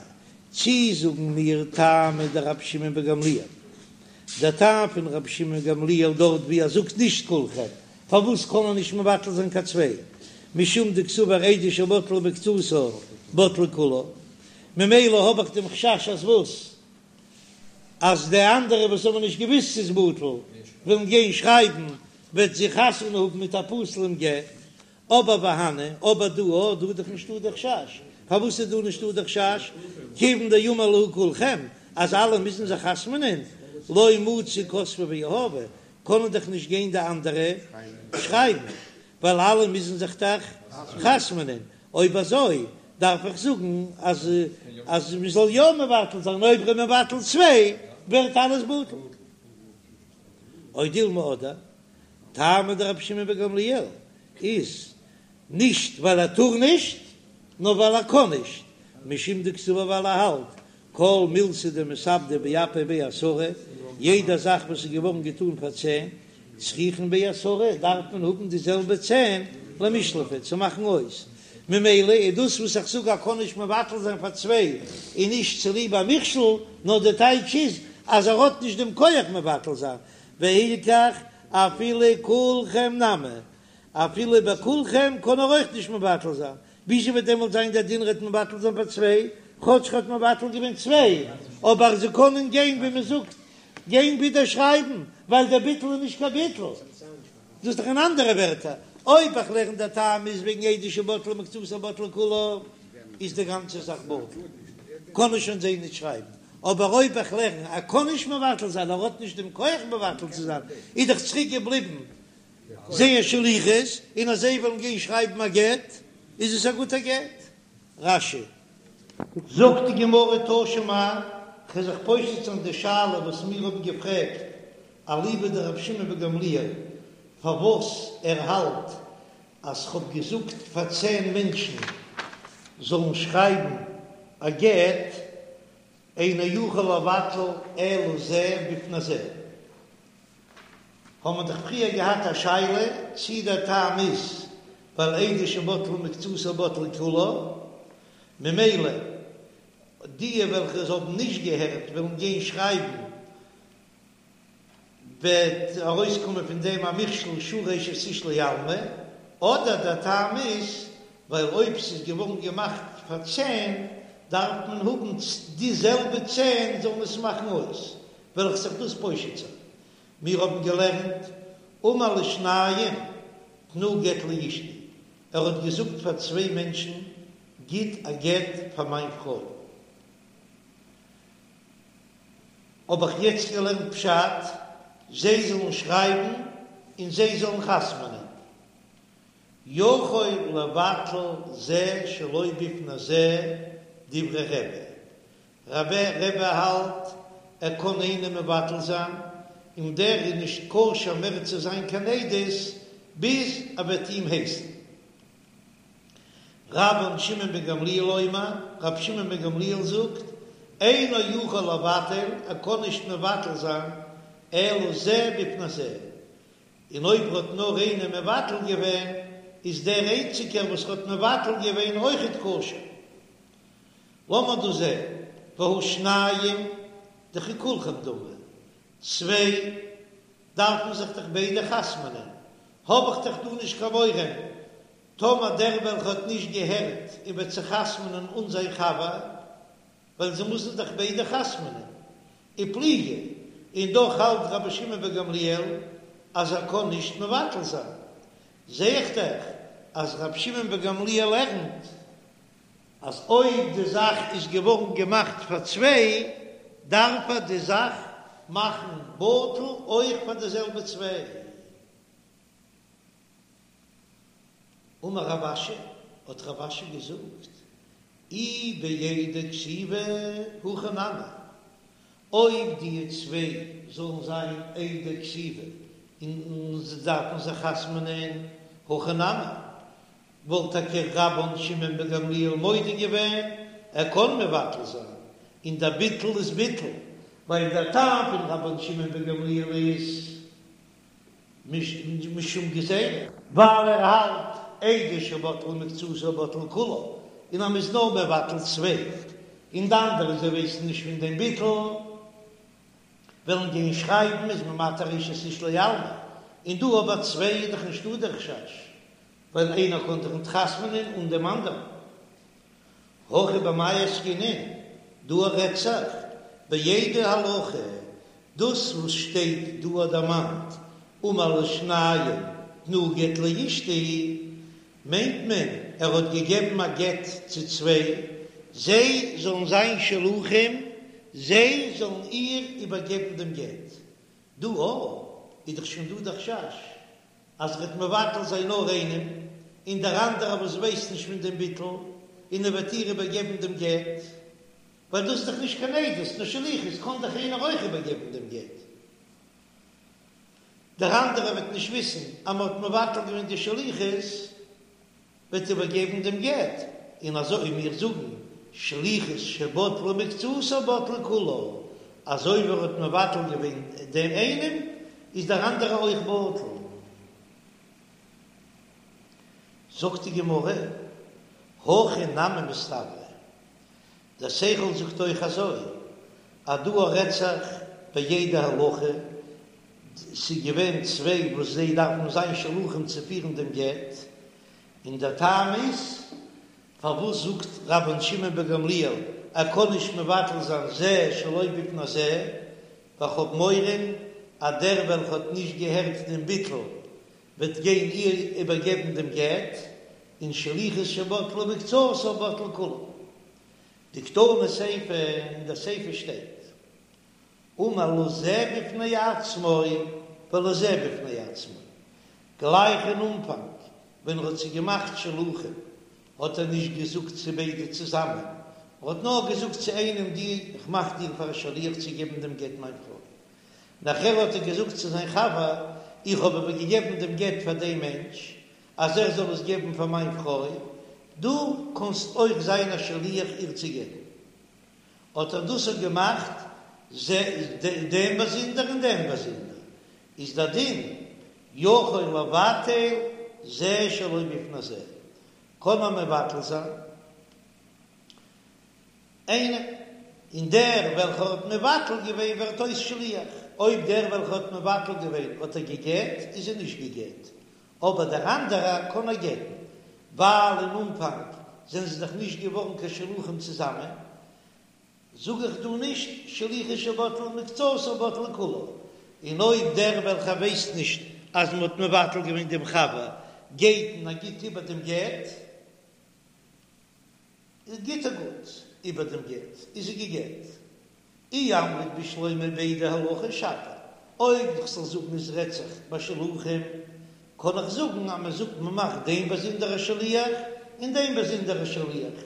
צי זאגן מיר טעמא דרבי שמעון בן גמליאל, דער טעם פון רבי שמעון בן גמליאל דארט ווי ער זאגט נישט כולכם, פארוואס קען ער נישט מבטל זיין קיין צוויי? משום דקסבר עדות שבטלה מקצתה בטלה כולה, ממילא האב איך דעם חשש אז וואס? אז די אנדערע וואס האבן נישט געוויסט ס'איז בטל וועלן גיין שרייבן וועט זי חתונה האבן מיט א פסול'ן גט. אבער והני, אבער דא, אה, דא איז דאך נישטא די חשש. פארוואס איז דא נישטא די חשש? כיוון דאמר להו כולכם, אז אלע מוזן זיך חתמ'נען, לא מצו כתבי ויהבי, קענען דאך נישט גיין די אנדערע שרייבן, ווייל אלע מוזן זיך דאך חתמ'נען. אויב אזוי דארף איך זאגן אז אז מען זאל יא מבטל זיין, אויב ער איז מבטל צוויי ווערט אלעס בטל. או דילמא אדער טעמא דרבי שמעון בן גמליאל איז נישט ווייל ער טאר נישט, נאר ווייל ער קען נישט, משום דקסבר ווייל ער האלט כל מילתא דמתעבדא באפי בי עשרה, יעדע זאך וואס איז געווארן געטאן פאר צען, צריכין בי עשרה, דארף מען האבן די זעלבע צען למישלפה צו מאכן אויס, ממילא איז דאס וואס איך זאג ער קען נישט מבטל זיין פאר צוויי איז נישט צוליב א מכשול, נאר די טייטש איז אז ער האט נישט דעם כח מבטל זיין, והילכך אפילו כולכם נמי, אפילו ביי כולכם קען ער אויך נישט מבטל זיין, וויאזוי וועט דעמאלט זיין דער דין ר'עט מבטל זיין פאר צוויי, כאטש ר'האט מבטל געווען צוויי, אבער זיי קענען גיין ווי מען זאגט גיין ווידער שרייבן, ווייל דער ביטול איז נישט קיין ביטול. דאס איז דאך אין אנדערע ווערטער, אויב איך לערן דער טעם איז וועגן עדות שבטלה מקצתה בטלה כולה, איז די גאנצע זאך בטל, קען ער שוין זיי נישט שרייבן, אבער אויב איך לערן ער קען נישט מבטל זיין, ער האט נישט דעם כח מבטל צו זיין, איז דאך צוריק געבליבן זייער שליחות, און אז זיי וועלן גיין שרייבן א גט, איז עס א גוטע גט. רש"י. זאגט די גמרא תא שמע, כ'וועל זיך פושט זיין די שאלה וואס מיר האבן געפרעגט אליבא דרבי שמעון בן גמליאל פארוואס ער האלט אז כ'האב געזאגט פאר צען מענטשן זאלן שרייבן א גט, אינו יכול לבטל אלא זה בפני זה. האבן מיר דאך פריער געהאט א שאלה צי דער טעם איז ווייל עדות שבטלה מקצתה בטלה כולה, ממילא די וועלכע עס האבן נישט געהערט וועלן גיין שרייבן וועט ארויסקומען פון דעם א מכשול שרי אשת איש לעלמא, אדער דער טעם איז ווייל אויב ס'איז געווארן געמאכט פאר צען דארף מען האבן די זעלבע צען זאלן עס מאכן אויס, וועל איך זיך דאס פושט זיין. מיר האבן געלערנט אמר לשניים תנו גט לאשתי, ער האט געזאגט פאר צוויי מענטשן גיט א גט פאר מיין פרוי. האב איך יעצט געלערנט פשט, זיי זאלן שרייבן און זיי זאלן חתמ'נען. יכול לבטל זה שלא בפני זה דברי רבי, רבי רבי האלט ער קען איינעם מבטל זיין און דער איז נישט כשר מער צו זיין קיין עדות ביז ער וועט אים הייסן. רבן שמעון בן גמליאל אומר, רבי שמעון בן גמליאל זאגט, אינו יכול לבטל, ער קען נישט מבטל זיין, אלא זה בפני זה, און אויב האט נאר איינער מבטל געווען, איז דער איינציגער וואס האט מבטל געווען אויכעט כשר. לאמיר דא זען, והא שניים דככולכם דמי, צוויי דארפן זיך דאך ביידע חתמ'נען, האב איך דאך דא נישט קיין מורא, טאמער דער וועלכע האט נישט געהערט און וועט זיך חתמ'נען אן זיין חבר, ווייל זיי מוזן דאך ביידע חתמ'נען, ופליגי, און דאך האלט רבי שמעון בן גמליאל אז ער קען נישט מבטל זיין, זע איך דאך אז רבי שמעון בן גמליאל לערנט אז אויב די זאך איז געווארן געמאכט פאר צוויי, דארף ער די זאך מאכן בטל אויך פאר די זעלבע צוויי. אמר רב אשי, האט רב אשי געזאגט, אי בעדי כתיבה הכי נמי, אויב די צוויי זאלן זיין עדי כתיבה און זיי דארפן זיך חתמ'נען, הכי נמי, וואלט טאקע רבן שמעון בן גמליאל מודה געווען, ער קען מבטל זיין, און דער ביטול איז ביטול, ווייל דער טעם פון רבן שמעון בן גמליאל איז משום גזירה, ווייל ער האלט עדות שבטלה מקצתה בטלה כולה, און אז מ'איז נאר מבטל צוויי, און די אנדערע זיי ווייסן נישט פון דעם ביטול, וועלן גיין שרייבן איז מען מתיר אשת איש לעלמא, און דא אבער צוויי איז דאך נישטא דער חשש, ווייל איינער קען זיך ניט חתמ'נען אן דעם אנדערן. הכא במאי עסקינן, דא רעדט זיך בעדי הלכה, דאס וואס שטייט דא דערמאנט אמר לשניים תנו גט לאשתי. מיינט מען ער האט געגעבן א גט צו צוויי, זיי זאלן זיין שלוחים, זיי זאלן איר איבערגעבן דעם גט. דא איז דאך שוין דא די חשש אז ער וועט מבטל זיין נאר איינעם, און דער אנדערער וואס ווייסט נישט פון דעם ביטול, און ער וועט איר איבערגעבן דעם גט, ווייל דאס איז דאך נישט קיין עדות, נאר שליחות, קען דאך איינער אויך איבערגעבן דעם גט. דער אנדערער וועט נישט וויסן אז מען האט מבטל געווען די שליחות, וועט איבערגעבן דעם גט, און אזוי מיר זאגן שליחות שבטלה מקצתה בטלה כולה, אזוי ווי ער האט מבטל געווען דעם איינעם איז דער אנדערער אויך בטל. זאגט די גמרא, הכי נמי מסתברא, דער שכל זאגט אויך אזוי, אז דא רעדט זיך בעדי הולכה, ס'איז געווען צוויי וואס זיי דארפן זיין שלוחים צו פירן דעם גט, און דער טעם איז פארוואס זאגט רבן שמעון בן גמליאל ער קען נישט מבטל זיין זה שלא בפני זה, ווייל כ'האב מורא אז דער וועלכע האט נישט געהערט דעם ביטול וועט גיין איר איבערגעבן דעם גט, און שליחות שבטלה מקצתה בטלה כולה. דקתני סיפא, אין דער סיפא שטייט, אמר לזה בפני עצמו ולזה בפני עצמו, גלייך אין אנפאנג ווען ער האט זיי געמאכט שלוחים האט ער נישט געזאגט צו ביידע צוזאמען, ער האט נאר געזאגט צו איינעם דו איך מאך דיר פאר א שליח צו געבן דעם גט מיין פרוי, נאכער האט ער געזאגט צו זיין חבר איך האב איבערגעגעבן דעם גט פאר דעם מענטש אז ער זאל עס געבן פאר מיין פרוי, דו קאנסט אויך זיין א שליח איר צו געבן. האט ער דאס אויך געמאכט דעם באזונדער און דעם באזונדער, איז דער דין יכול לבטל זה שלא בפני זה, קען מען מבטל זיין איינעם, און דער וועלכער האט מבטל געווען ווערט אויס שליח, אויב דער וועלכער האט מבטל געווען האט ער גע'גט, איז ער נישט גע'גט, אבער דער אנדערער קען ער גט'ן, ווייל אין אנפאנג זענען זיי דאך נישט געווארן קיין שלוחים צוזאמען, זאג איך דא נישט שליחות שבטלה מקצתה בטלה כולה, און אויב דער וועלכער ווייסט נישט אז מען האט מבטל געווען דעם חבר גייט און ער גיט איבער דעם גט, גיט ער גוט איבער דעם גט, איז זי גע'גט. אי אמרת בשלמא בעדי הולכה שפיר, אויב איך זאל זאגן עס רעדט זיך ביי שלוחים, קען איך זאגן אז מען זאגט מען מאכט דעם באזונדער א שליח און דעם באזונדער א שליח,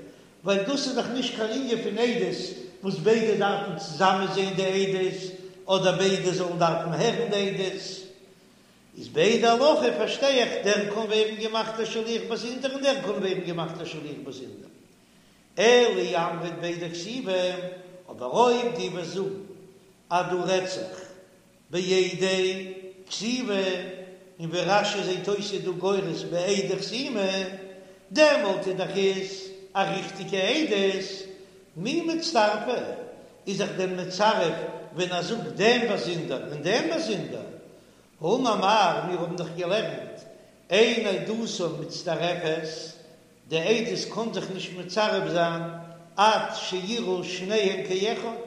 ווייל דאס איז דאך נישט קיין ענין פון עדות וואס ביידע דארפן צוזאמען זען די עדות, אדער ביידע זאלן דארפן הערן די עדות. איז בעדי הולכה פארשטיי איך דער קען ווערן געמאכט א שליח באזונדער און דער קען ווערן געמאכט א שליח באזונדער. אלא אי אמרת בעדי כתיבה, אבער אויב דו וועסט זאגן אז דא רעדט זיך בעדי כתיבה, און ווי רש"י זעט אויס איז דא גורס בעדי חתימה, דעמאלט איז דאך עס א ריכטיגע עדות, מי מצטרפי, איז זיך דען מצרף ווען ער זאגט דעם באזונדער און דעם באזונדער? האמר מר, מיר האבן דאך געלערנט אין עדותן מצטרפת, די עדות קען זיך נישט מצרף זיין עד שיראו שניהם כאחד,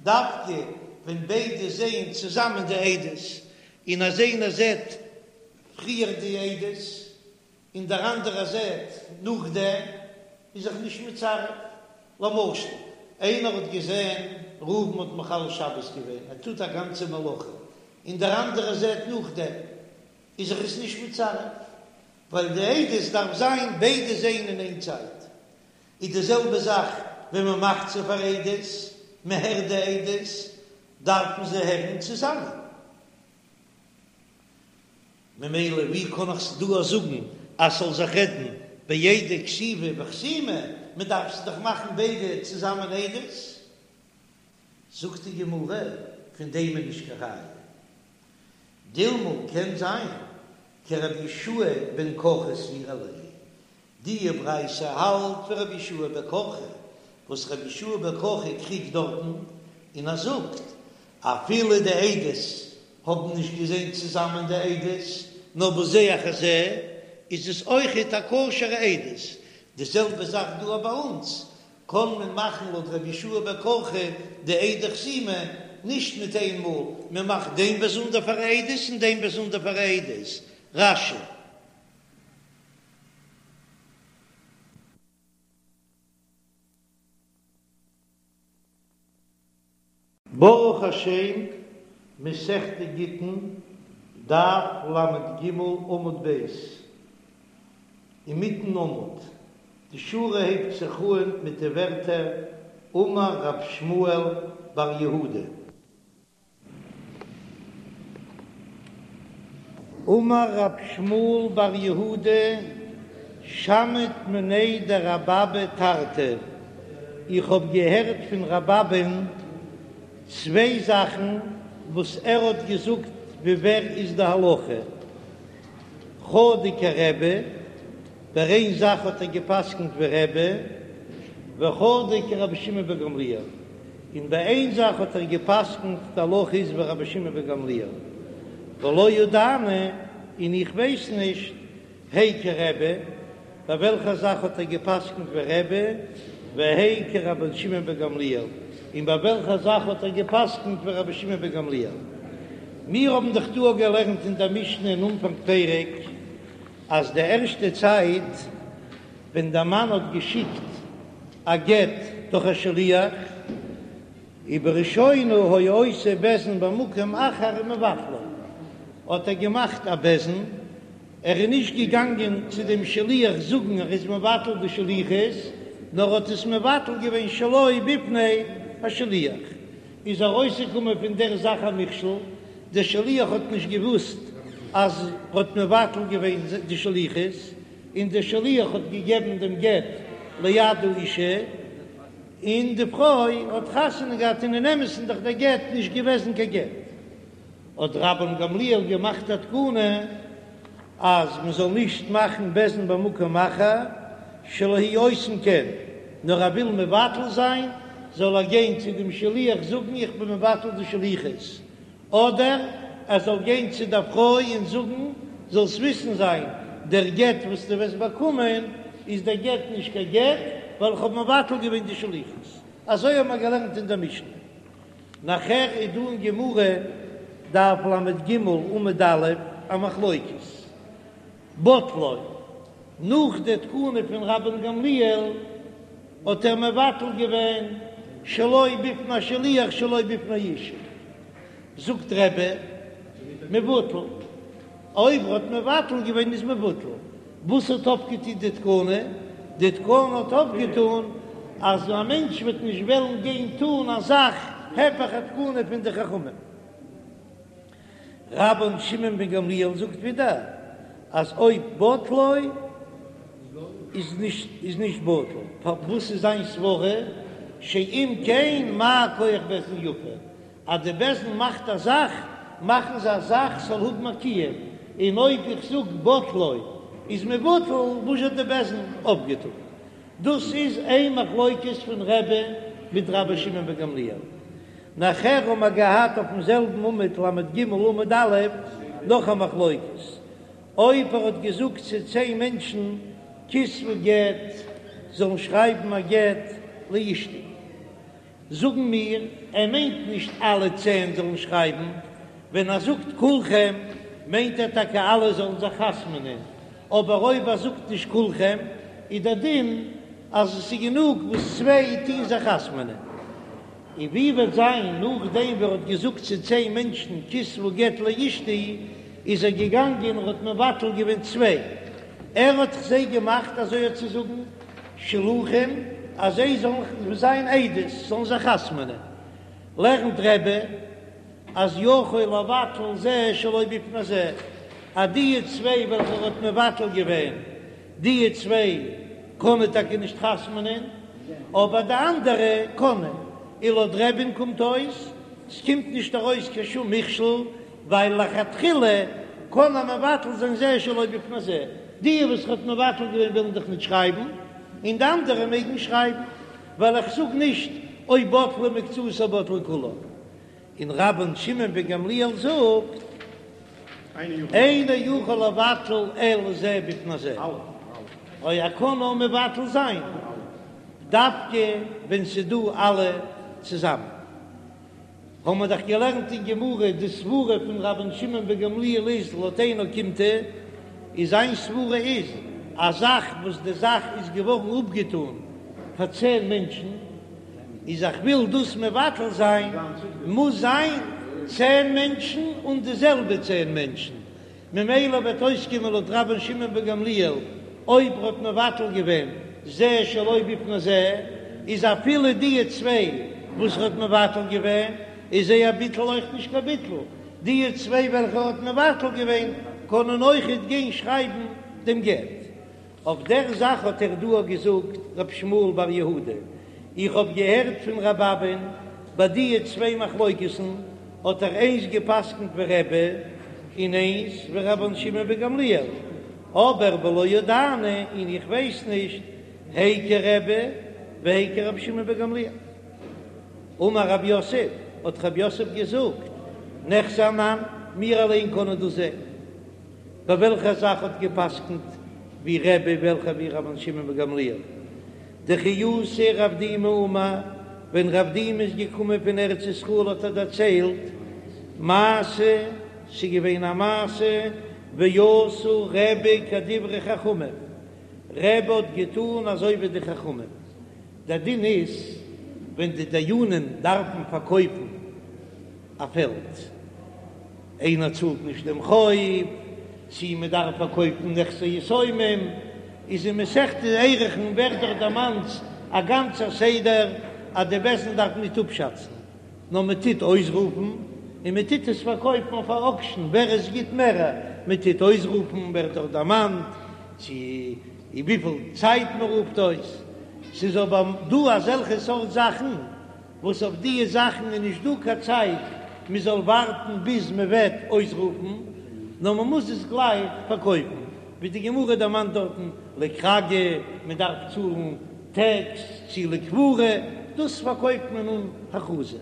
דווקא ווען ביידע זעען צוזאמען די עדות, און אז איינער זעט פריער די עדות און דער אנדערער זעט נאכדעם, איז זיך נישט מצרף. למשל, איינער האט געזען ראובן האט מחלל שבת געווען, ער טוט א גאנצע מלאכה, און דער אנדערער זעט נאכדעם, איז זיך עס נישט מצרף, ווייל די עדות דארף זיין ביידע זעהן אין איין צייט. איז די זעלבע זאך ווען מען מאכט זיי פאר עדות, מען הערט די עדות, דארפן זיי הערן צוזאמען. ממילא ווי קען איך דא זאגן אז ס'זאל זיך רעדן בעדי כתיבה וחתימה, מען דארף זיי דאך מאכן ביידע צוזאמען עדות. זאגט די גמרא, פון דעם איז נישט קיין ראיה. דילמא קען זיין כרבי יהושע בן קרחה סבירא ליה, די ברייתא האלט ווי רבי יהושע בן קרחה, וואס רבי יהושע בן קרחה קריגט דארטן און ער זאגט אפילו די עדות האבן נישט געזען צוזאמען די עדות נאר בזה אחר זה איז עס אויכעט א כשר'ע עדות, די זעלבע זאך דא ביי אונז, קען מען מאכן לויט רבי יהושע בן קרחה די עדי חתימה נישט מיט איין מאל, מען מאכט דעם באזונדער פאר עדות און דעם באזונדער פאר עדות. רש"י. ברוך השם, מסכת גיטין, דף ל"ג עמוד ב', אינמיטן עמוד, די שורה הייבט זיך אהן מיט די ווערטער אמר רב שמואל בר יהודה. אמר רב שמואל בר יהודה שמעית מיניה דרבי אבא תרתי, איך האב געהערט פון רבי אבא'ן צוויי זאכן וואס ער האט געזאגט ווי ווער איז די הלכה, חדא כרבי, ביי איין זאך האט ער געפסקנט ווי רבי, וחדא כרבי שמעון בן גמליאל, און ביי איין זאך האט ער געפסקנט די הלכה איז ווי רבי שמעון בן גמליאל, ולא ידענא, און איך ווייס נישט, הי כרבי, ביי וועלכע זאך האט ער געפסקנט ווי רבי, והי כרבי שמעון בן גמליאל, און ביי וועלכע זאך האט ער געפסקנט ווי רבי שמעון בן גמליאל. מיר האבן דאך דא געלערנט אין דער משנה אין אנפאנג פרק, אז די ערשטע צייט ווען דער מאן האט געשיקט א גט דורך א שליח, ובראשונה היה עושה בית דין במקום אחר ומבטלו, האט ער געמאכט א בית דין, ער איז נישט געגאנגען צו דעם שליח זאגן ער איז מבטל די שליחות, נאר האט עס מבטל געווען שלא בפני השליח, איז ארויסגעקומען פון דער זאך א מכשול, דער שליח האט נישט געוואוסט אז ער האט מבטל געווען די שליחות, און דער שליח האט געגעבן דעם גט ליד האישה, און די פרוי האט חתונה געהאט, און אין אמת'ן דאך דער גט נישט געוועזן קיין גט. האט רבן גמליאל געמאכט א תקנה אז מען זאל נישט מאכן בית דין במקום אחר שלא יהו עושין כן, נאר ער וויל מבטל זיין זאל ער גיין צו דעם שליח זאגן איך בין מבטל די שליחות, אדער ער זאל גיין צו דער פרוי און זאגן זאלסט וויסן זיין דער גט וואס דו וועסט באקומען איז דער גט נישט קיין גט ווייל איך האב מבטל געווען די שליחות, אזוי האבן מיר געלערנט אין דער משנה. נאכער איז דא אין גמרא, דף ל"ג עמוד א', א מחלוקת, בטלו, נאך די תקנה פון רבן גמליאל האט ער מבטל געווען שלא בפני השליח שלא בפני האישה, זאגט רבי, מבוטל, אויב ער האט מבטל געווען איז מבוטל, וואס האט אויפגעטון די תקנה? די תקנה האט אויפגעטון אז א מענטש וועט נישט וועלן גיין טון א זאך הפך התקנה פון די חכמים. רבן שמעון בן גמליאל זאגט ווידער אז אויב בטלו איז נישט איז נישט בטל, פארוואס איז זיין סברה שאם כן מה כח בית דין יפה? אז די בית דין מאכט א זאך, מאכן זיי א זאך ס'זאל האבן א קיום, און אויב איך זאג בטלו איז מבוטל, וואס האט די בית דין אויפגעטון? דאס איז איין מחלוקת פון רבי מיט רבי שמעון בן גמליאל. נאכער האבן מיר געהאט אויפן זעלבן עמוד ל"ג עמוד א' נאך א מחלוקת, אויב ער האט געזאגט צו צען מענטשן כתבו גט זאלן שרייבן א גט לאשתי, זאגן מיר, ער מיינט נישט אלע צען זאלן שרייבן, ווען ער זאגט כולכם מיינט ער טאקע אלע זאלן זיך חתמ'נען, אבער אויב ער זאגט נישט כולכם איז דער דין אז עס איז גענוג וואס צוויי טוהן זיך חתמ'נען. און ווי וועט זיין נאכדעם ווי ער האט געזאגט צו צען מענטשן כתבו גט לאשתי, איז ער געגאנגען און האט מבטל געווען צוויי, ער האט זיי געמאכט אזוי אויף צו זאגן שלוחים אז זיי זאלן זיין עדות, זאלן זיך חתמ'נען, לערנט רבי אז יכול לבטל זה שלא בפני זה, אז די צוויי וועלכע ער האט מבטל געווען, די צוויי קענען טאקע נישט חתמ'נען, אבער די אנדערע קענען, און לויט רבי'ן קומט אויס, ס'קומט נישט ארויס קיין שום מכשול, ווייל לכתחילה קען ער מבטל זיין זה שלא בפני זה, די וואס ער האט מבטל געווען ווילן דאך נישט שרייבן, און די אנדערע מעגן שרייבן, ווייל איך זאג נישט אויב בטלה מקצתה בטלה כולה. און רבן שמעון בן גמליאל זאגט, אינו יכול לבטל אלא זה בפני זה, אוי ער קען נאר מבטל זיין דווקא ווען ס'דא אלע צוזאמען. האבן מיר דאך געלערנט אין גמרא די סברה פון רבן שמעון בן גמליאל איז לויט איין אוקימתא, איז זיין סברה איז א זאך וואס די זאך איז געווארן אפגעטאן פאר צען מענטשן. איז איך וויל דאס מבטל זיין, מוז זיין צען מענטשן און די זעלבע צען מענטשן, ממילא וועט אויסקומען לויט רבן שמעון בן גמליאל, אויב ר'האט מבטל געווען זה שלא בפני זה, איז אפילו די צוויי וואס ר'האט מבטל געווען, איז זייער ביטול אויך נישט קיין ביטול, די צוויי וועלכע ר'האט מבטל געווען קענען אויכעט גיין שרייבן דעם גט. אויף דער זאך האט ער דא געזאגט ר' שמואל בר יהודה, איך האב געהערט פון ר' אבא'ן, ביי דיע צוויי מחלוקת'ן האט ער איינס גע'פסק'נט ווי רבי און איינס ווי רבן שמעון בן גמליאל, אבער ולא ידענא און איך ווייס נישט הי כרבי והי כרבי שמעון בן גמליאל. אמר רב יוסף, האט רב יוסף געזאגט, ניחזי אנן, מיר אליין קענען דאס זען. ביי וועלכע זאך האט געפסקנט ווי רבי וועלכע ווי רבן שמעון בן גמליאל? דכי אתא רב דימי אמר, ווען רב דימי איז געקומען פון ארץ ישראל האט ער דערציילט מעשה, ס'איז געווען א מעשה, ועשה רבי כדברי חכמים, רבי האט געטון אזוי ווי די חכמים, דער דין איז ווען די דיינים דארפן פארקויפן א פעלד, איינער צאלט נישט דעם חוב, צי מען דארף פארקויפן נכסי יתומים, איז אין מסכת ערכין ווערט דאך דערמאנט א גאנצער סדר אז די בית דין דארף ניט אפשאצן, נאר מען טוט אויסרופן און מען טוט עס פארקויפן אויף א אוקשן ווער עס גיט מער, מען טוט אויסרופן ווערט דאך דערמאנט צו וויפיל צייט מען רופט אויס, ס'איז אבער דא אזעלכע סארט זאכן וואס אויף דיע זאכן איז נישט דא קיין צייט מען זאל ווארטן ביז מען וועט אויסרופן, נאר מען מוז עס גלייך פארקויפן, ווי די גמרא דערמאנט דארטן לכרגא, מען דארף צאלן טעקס, צו לקבורה, דאס פארקויפט מען אן הכרזה.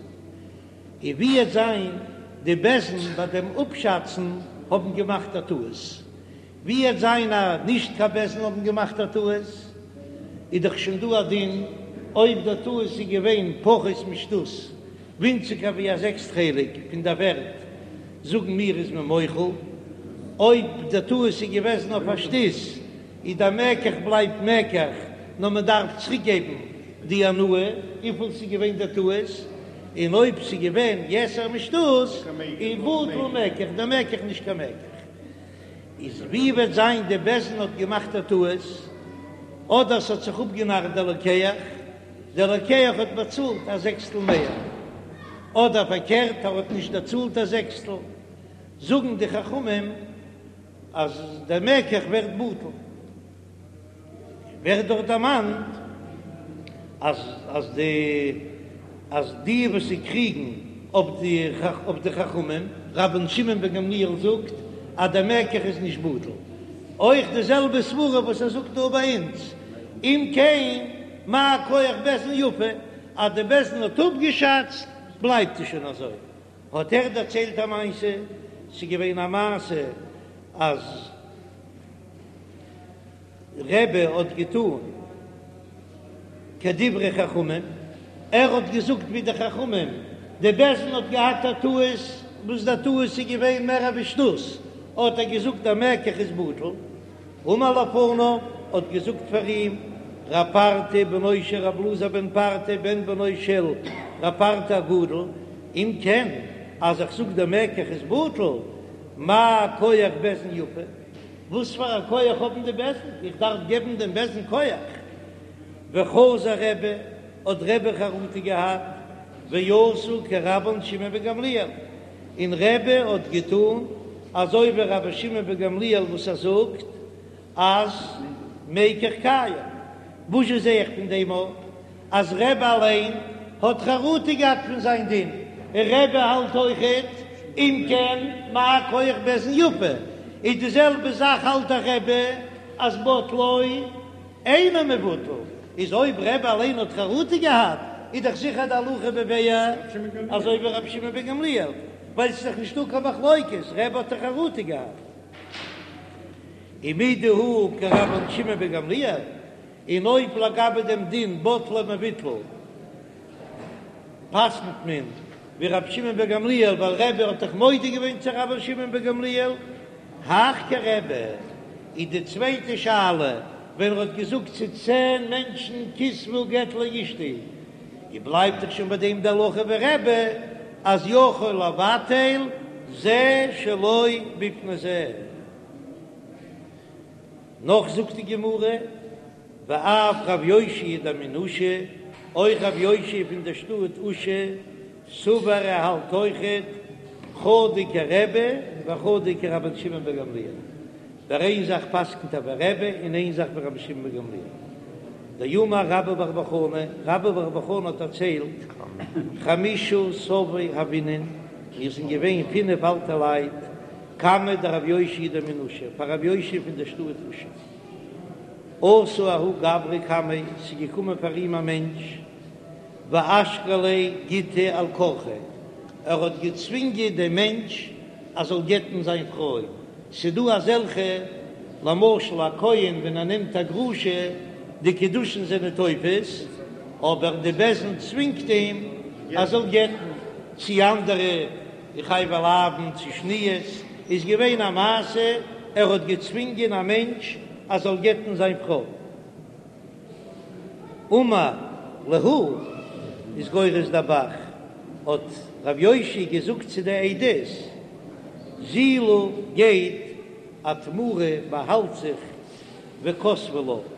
און ווי עט זיין די בית דין ביי דעם אפשאצן האבן געמאכט א טעות, ווי עט זיין אז נישט קיין בית דין האבן געמאכט א טעות, איז דאך שוין דא א דין, אויב דער טעות איז געווען פחות משתות, ווינציגער ווי א זעקסט חלק פון דער ווערט, זאגן מיר איז מען מוחל, אויב דער טעות איז געוועזן אויף א שתות, איז דער מקח בלייבט מקח, נאר מען דארף צוריק געבן די הנאה וויפיל ס'איז געווען דער טעות, און אויב ס'איז געווען יתר משתות, איז בטל מקח, דער מקח נישט קיין מקח. איז ווי וועט זיין די בית דין האט געמאכט א טעות, אדער ס'האט זיך אפגענארט דער לוקח, דער לוקח האט באצאלט א זעקסטל מער, אדער פארקערט ער האט נישט דערצאלט א זעקסטל, זאגן די חכמים אז דער מקח ווערט בטל. ווערט דארט דערמאנט אז אז די אז די וואס זיי קריגן אויף די אויף די חכמים, רבן שמעון בן גמליאל זאגט אז דער מקח איז נישט בטל, אויך די זעלבע סברה וואס ער זאגט דא ביי אונז, אם כן מה כח בית דין יפה, אז די בית דין האט אפגעשאצט בלייבט עס שוין אזוי, האט ער דערציילט א מעשה, ס'איז געווען א מעשה אז. רבי האט געטון כדברי חכמים, ער האט געזאגט ווי די חכמים, די בית דין האט געהאט א טעות, וואס די טעות איז געווען מער ווי שתות, האט ער געזאגט דער מקח איז בטל, אמר לפניו, האט געזאגט פאר אים רב פרטא בנו של רב אלעזר בן פרטא בן בנו של רב פרטא הגדול, אם כן אז איך זאג דער מקח איז בטל, מה כח בית דין יפה? וואס פאר א כח האבן די בית דין? איך דארף געבן דעם בית דין כח? וחזר רבי, האט רבי חרטה געהאט, ועשה כרבן שמעון בן גמליאל, און רבי האט געטון אזוי ווי רבי שמעון בן גמליאל וואס ער זאגט אז מקח קיים. וואזשע זע איך פון דעם אויף אז רבי אליין האט חרטה געהאט פון זיין דין, און רבי האלט אויכעט אם כן מה כח בית דין יפה, איז די זעלבע זאך האלט דאך רבי אז בטלו אינו מבוטל, איז אויב רבי אליין האט חרטה געהאט איז דאך זיכער די הלכה בבעיה אזוי ווי רבי שמעון בן גמליאל, ווייל ס'איז דאך נישטא קיין מחלוקת, רבי האט דאך חרטה געהאט. ומדהא כרבן שמעון בן גמליאל, און אויב לגבי דעם דין בטלו מבוטל פסק'נט מען ווי רבי שמעון בן גמליאל ווייל רבי האט דאך מודה געווען צו רבן שמעון בן גמליאל, הך כרבי, איז די צווייטע שאלה ווען ער האט געזאגט צו צען מענטשן כתבו גט לאשתי. און בלייבט דאך שוין ביי דעם די הלכה ווי רבי אז יכול לבטל זה שלא בפני זה. נאך זאגט די גמרא, ואף רב יאשיה דמן אושא, אויך רב יאשיה פון דער שטאט אושא, סבר ער האלט אויכעט חדא כרבי וחדא כרבן שמעון בן גמליאל, ביי איין זאך פסק'נט ער ווי רבי און איין זאך ווי רבן שמעון בן גמליאל. דאמר רבה בר בר חנה, רבה בר בר חנה האט דערציילט, חמישה סבי הוינן, מיר זענען געווען פינף אלטע לייט, קמיה דרב יאשיה דמן אושא, פאר רב יאשיה פון דער שטאט אושא. אתא ההוא גברא קמיה, ס'איז געקומען פאר אים א מענטש, ואשקליה גיטא על כרחיה, ער האט געצווינגען דעם מענטש אז זאל גט'ן זיין פרוי, ס'דא אזעלכע, למשל א כהן ווען ער נעמט א גרושה, די קידושין זענען תופס, אבער די בית דין צווינגט אים אז זאל גט'ן, צי אנדערע חייבי לאוין צי שניות, איז געווען א מעשה ער האט געצווינגען א מענטש אז זאל גט'ן זיין פרוי. אמר להו איז גורס דער ב"ח, האט רב יאשיה געזאגט צו די עדות, זילו גייט אטמרו באהאלט זיך וכתבו לה,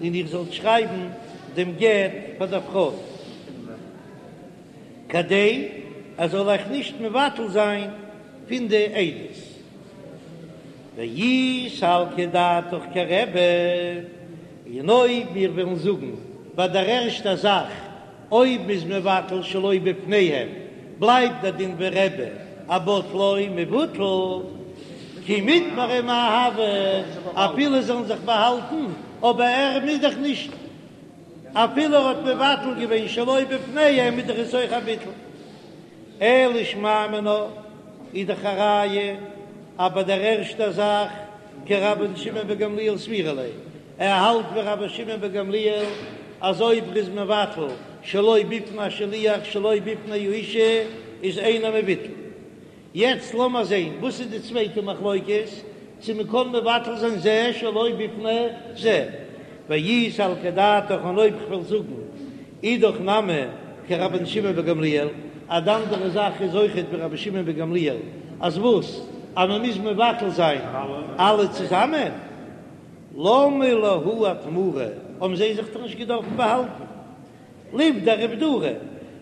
און איר זאלט שרייבן דעם גט פאר דער פרוי, כדי ער זאל אייך נישט מבטל זיין פון די עדות. ואי סלקא דעתך כרבי, און אויב מיר וועלן זאגן ביי דער ערשטער זאך, אויב מ'איז מבטל שלא בפניהם, בלייבט דער דין ווי רבי, אז בטלו מבוטל, כי מיטמרי מאי הוי, אפילו זאלן זיך באהאלטן, אבער ער מוז דאך נישט, אפילו ער האט מבטל געווען שלא בפניהם איז דאך עס אויך א ביטול. אלא שמע מינה איז דאך א ראיה אז ביי דער ערשטער זאך כרבן שמעון בן גמליאל סבירא ליה, ער האלט ווי רבן שמעון בן גמליאל אז אויב ר'איז מבטל שלא בפני השליח שלא בפני האישה איז אינו מבוטל. יעצט לאמער זעהן וואס איז די צווייטע מחלוקת, צו מ'קען מבטל זיין זה שלא בפני זה, ואי סלקא דעתך און אויב כ'וועל זאגן אידך נמי כרבן שמעון בן גמליאל, אז די אנדערע זאך איז אויכעט ווי רבן שמעון בן גמליאל, אז וואס? אז מען מוז מבטל זיין אלע צוזאמען? למה להו אטמורי, האבן זיי זיך דאך נישט געדארפן באהאלטן, ליבדרו איבדורי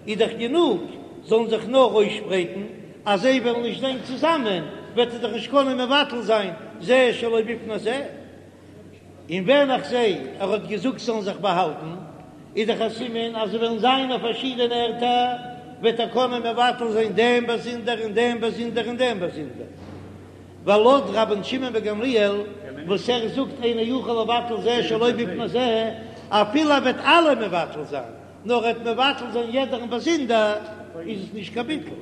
איז דאך גענוג זאלן זיך נאר אויסשפרייטן, אז זיי וועלן נישט זיין צוזאמען וועט ער דאך נישט קענען מבטל זיין זה שלא בפני זה. און ווען איך זע ער האט געזאגט זאלן זיך באהאלטן, איז דאך א סימן אז זיי וועלן זיין אויף פארשידענע ערטער, וועט ער קענען מבטל זיין דעם באזונדער און דעם באזונדער און דעם באזונדער. ווייל לויט רבן שמעון בן גמליאל וואס ער זאגט אינו יכול לבטל זה שלא בפני זה, אפילו ער וועט אלע מבטל זיין, נאר ער וועט מבטל זיין יעדערן באזונדער, איז עס נישט קיין ביטול.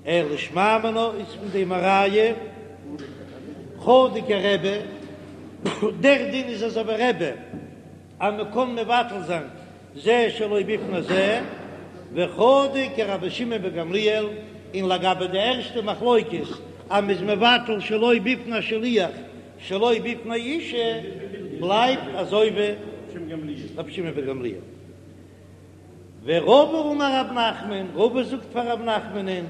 אלא שמע מינה איז פון דעם א ראיה חדא כרבי, דער דין איז אזוי ווי רבי אז מען קען מבטל זיין זה שלא בפני זה, וחדא כרבי שמעון בן גמליאל, און לגבי די ערשטע מחלוקת אז מען איז מבטל שלא בפני השליח שלא בפני אישה בלייבט אזוי ווי רבי שמעון בן גמליאל. ורבא אמר רב נחמן, רבא זאגט פאר רב נחמנ'ן,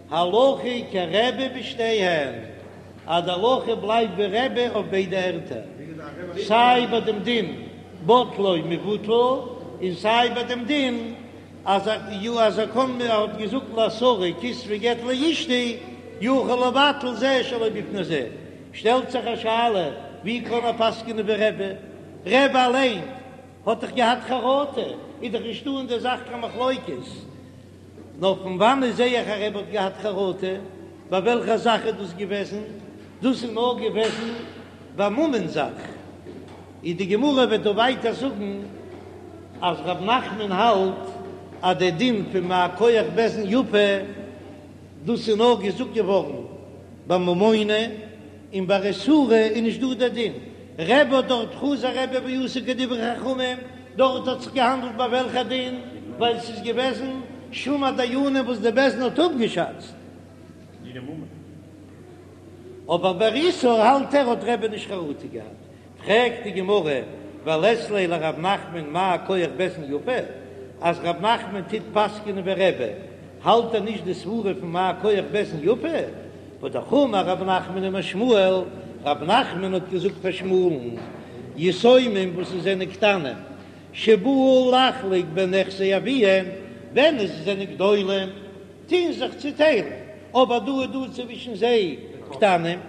הלכה כרבי בשתיהן, אז די הלכה בלייבט ווי רבי אויף ביידע ערטער, סיי ביי דעם דין בטלו מבוטל, און סיי ביי דעם דין אז אז ער קען ער האט געזאגט לעשרה כתבו גט לאשתי יכול לבטל זה שלא בפני זה, שטעלט זיך א שאלה, ווי קען ער פסק'נען ווי רבי? רבי אליין האט דאך געהאט חרטה, איז דאך נישטא אין דער זאך קיין מחלוקת. נאר פון וואנעט זע איך אז רבי האט געהאט חרטה? ביי וועלכע זאך איז דאס געוועזן? דאס איז נאר געוועזן ביי ממון זאך. איז די גמרא וועט דא ווייטער זאגן אז רב נחמן האלט אז דער דין פון מה כח בית דין יפה דאס איז נאר געזאגט געווארן ביי ממונא, און ביי איסורא איז נישט דא דער דין. רבי האט דארט חזר רבי ועשה כדברי חכמים, דארט האט זיך געהאנדלט ביי וועלכע דין, ווייל ס'איז געוועזן שום הדיינים וואס די בית דין האט אפגעשאצט. אבער ביי איסור האלט ער האט רבי נישט חרטה געהאט. פרעגט די גמרא. ולית ליה לרב נחמן מה כח בית דין יפה, אז רב נחמן טוט פסק'נען ווי רבי, האלט ער נישט די סברה פון מה כח בית דין יפה? והא אמר רב נחמן אמר שמואל, רב נחמן האט געזאגט פאר שמואל'ן, יתומים וואס עס זענען קטנים, שבאו לחלוק בנכסי אביהם, ווען עס זענען גדולים, טוהן זיך צוטיילן, אבער דא איז דא צווישן זיי קטנים,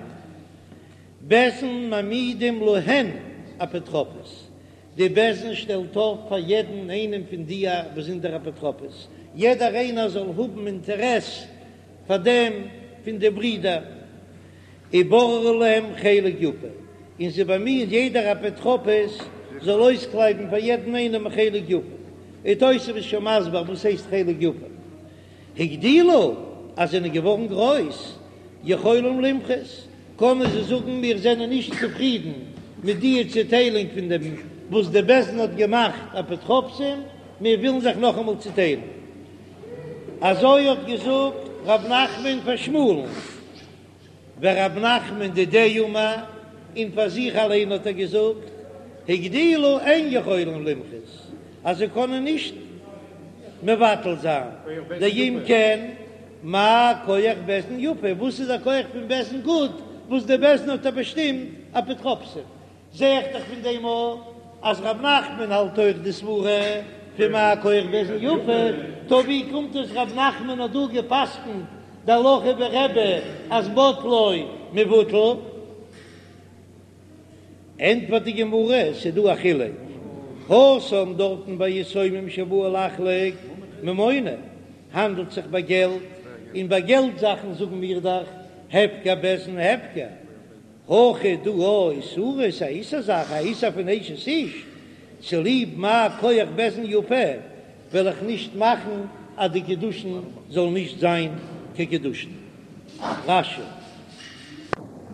בית דין מעמידים להן אפוטרופוס, די בית דין שטעלט אויף פאר יעדן איינעם פון די א באזונדער אפוטרופוס, יעדער איינער זאל האבן אינטערעס פאר דעם פון די ברידער, ובוררים להם חלק יפה, און זיי באמיען יעדער אפוטרופוס זאל אויסקלייבן פאר יעדן איינעם א חלק יפה, און תוספות איז שוין מסביר וואס הייסט חלק יפה. הגדילו, אז זענען געווארן גרויס, יכולים למחות, קענען זיי זאגן מיר זענען נישט צופרידן מיט די צוטיילונג פון דעם וואס די בית דין האט געמאכט אפוטרופסים, מיר ווילן זיך נאכאמאל צוטיילן. אזוי האט געזאגט ר' נחמן פאר שמואל'ן. ורב נחמן דידיה אמר, און פאר זיך אליין האט ער געזאגט, הגדילו אין יכולים למחות, אז זיי קענען נישט מבטל זיין, דאם כן, מה כח בית דין יפה, וואס איז דער כח פון בית דין גוט, וואס דער בית דין האט באשטימט אפוטרופסים, זע איך דאך פון דעם אויך אז רב נחמן האלט אויך די סברה פון מה כח בית דין יפה, טא ווי קומט עס רב נחמן האט דא געפסקנט די הלכה ווי רבי אז בטלו מבוטל? ענטפערט די גמרא, ס'איז דא א חילוק, התם דארטן ביי יתומים שבאו לחלוק ממונא האנדלט זיך ביי געלט, און ביי געלט זאכן זאגן מיר דאך הפקר בית דין הפקר, הכא דא איסורא ס'איז א איסור זאך, א איסור פון אשת איש, צוליב מה כח בית דין יפה וועל איך נישט מאכן אז די קידושין זאל נישט זיין קיין קידושין. רש"י.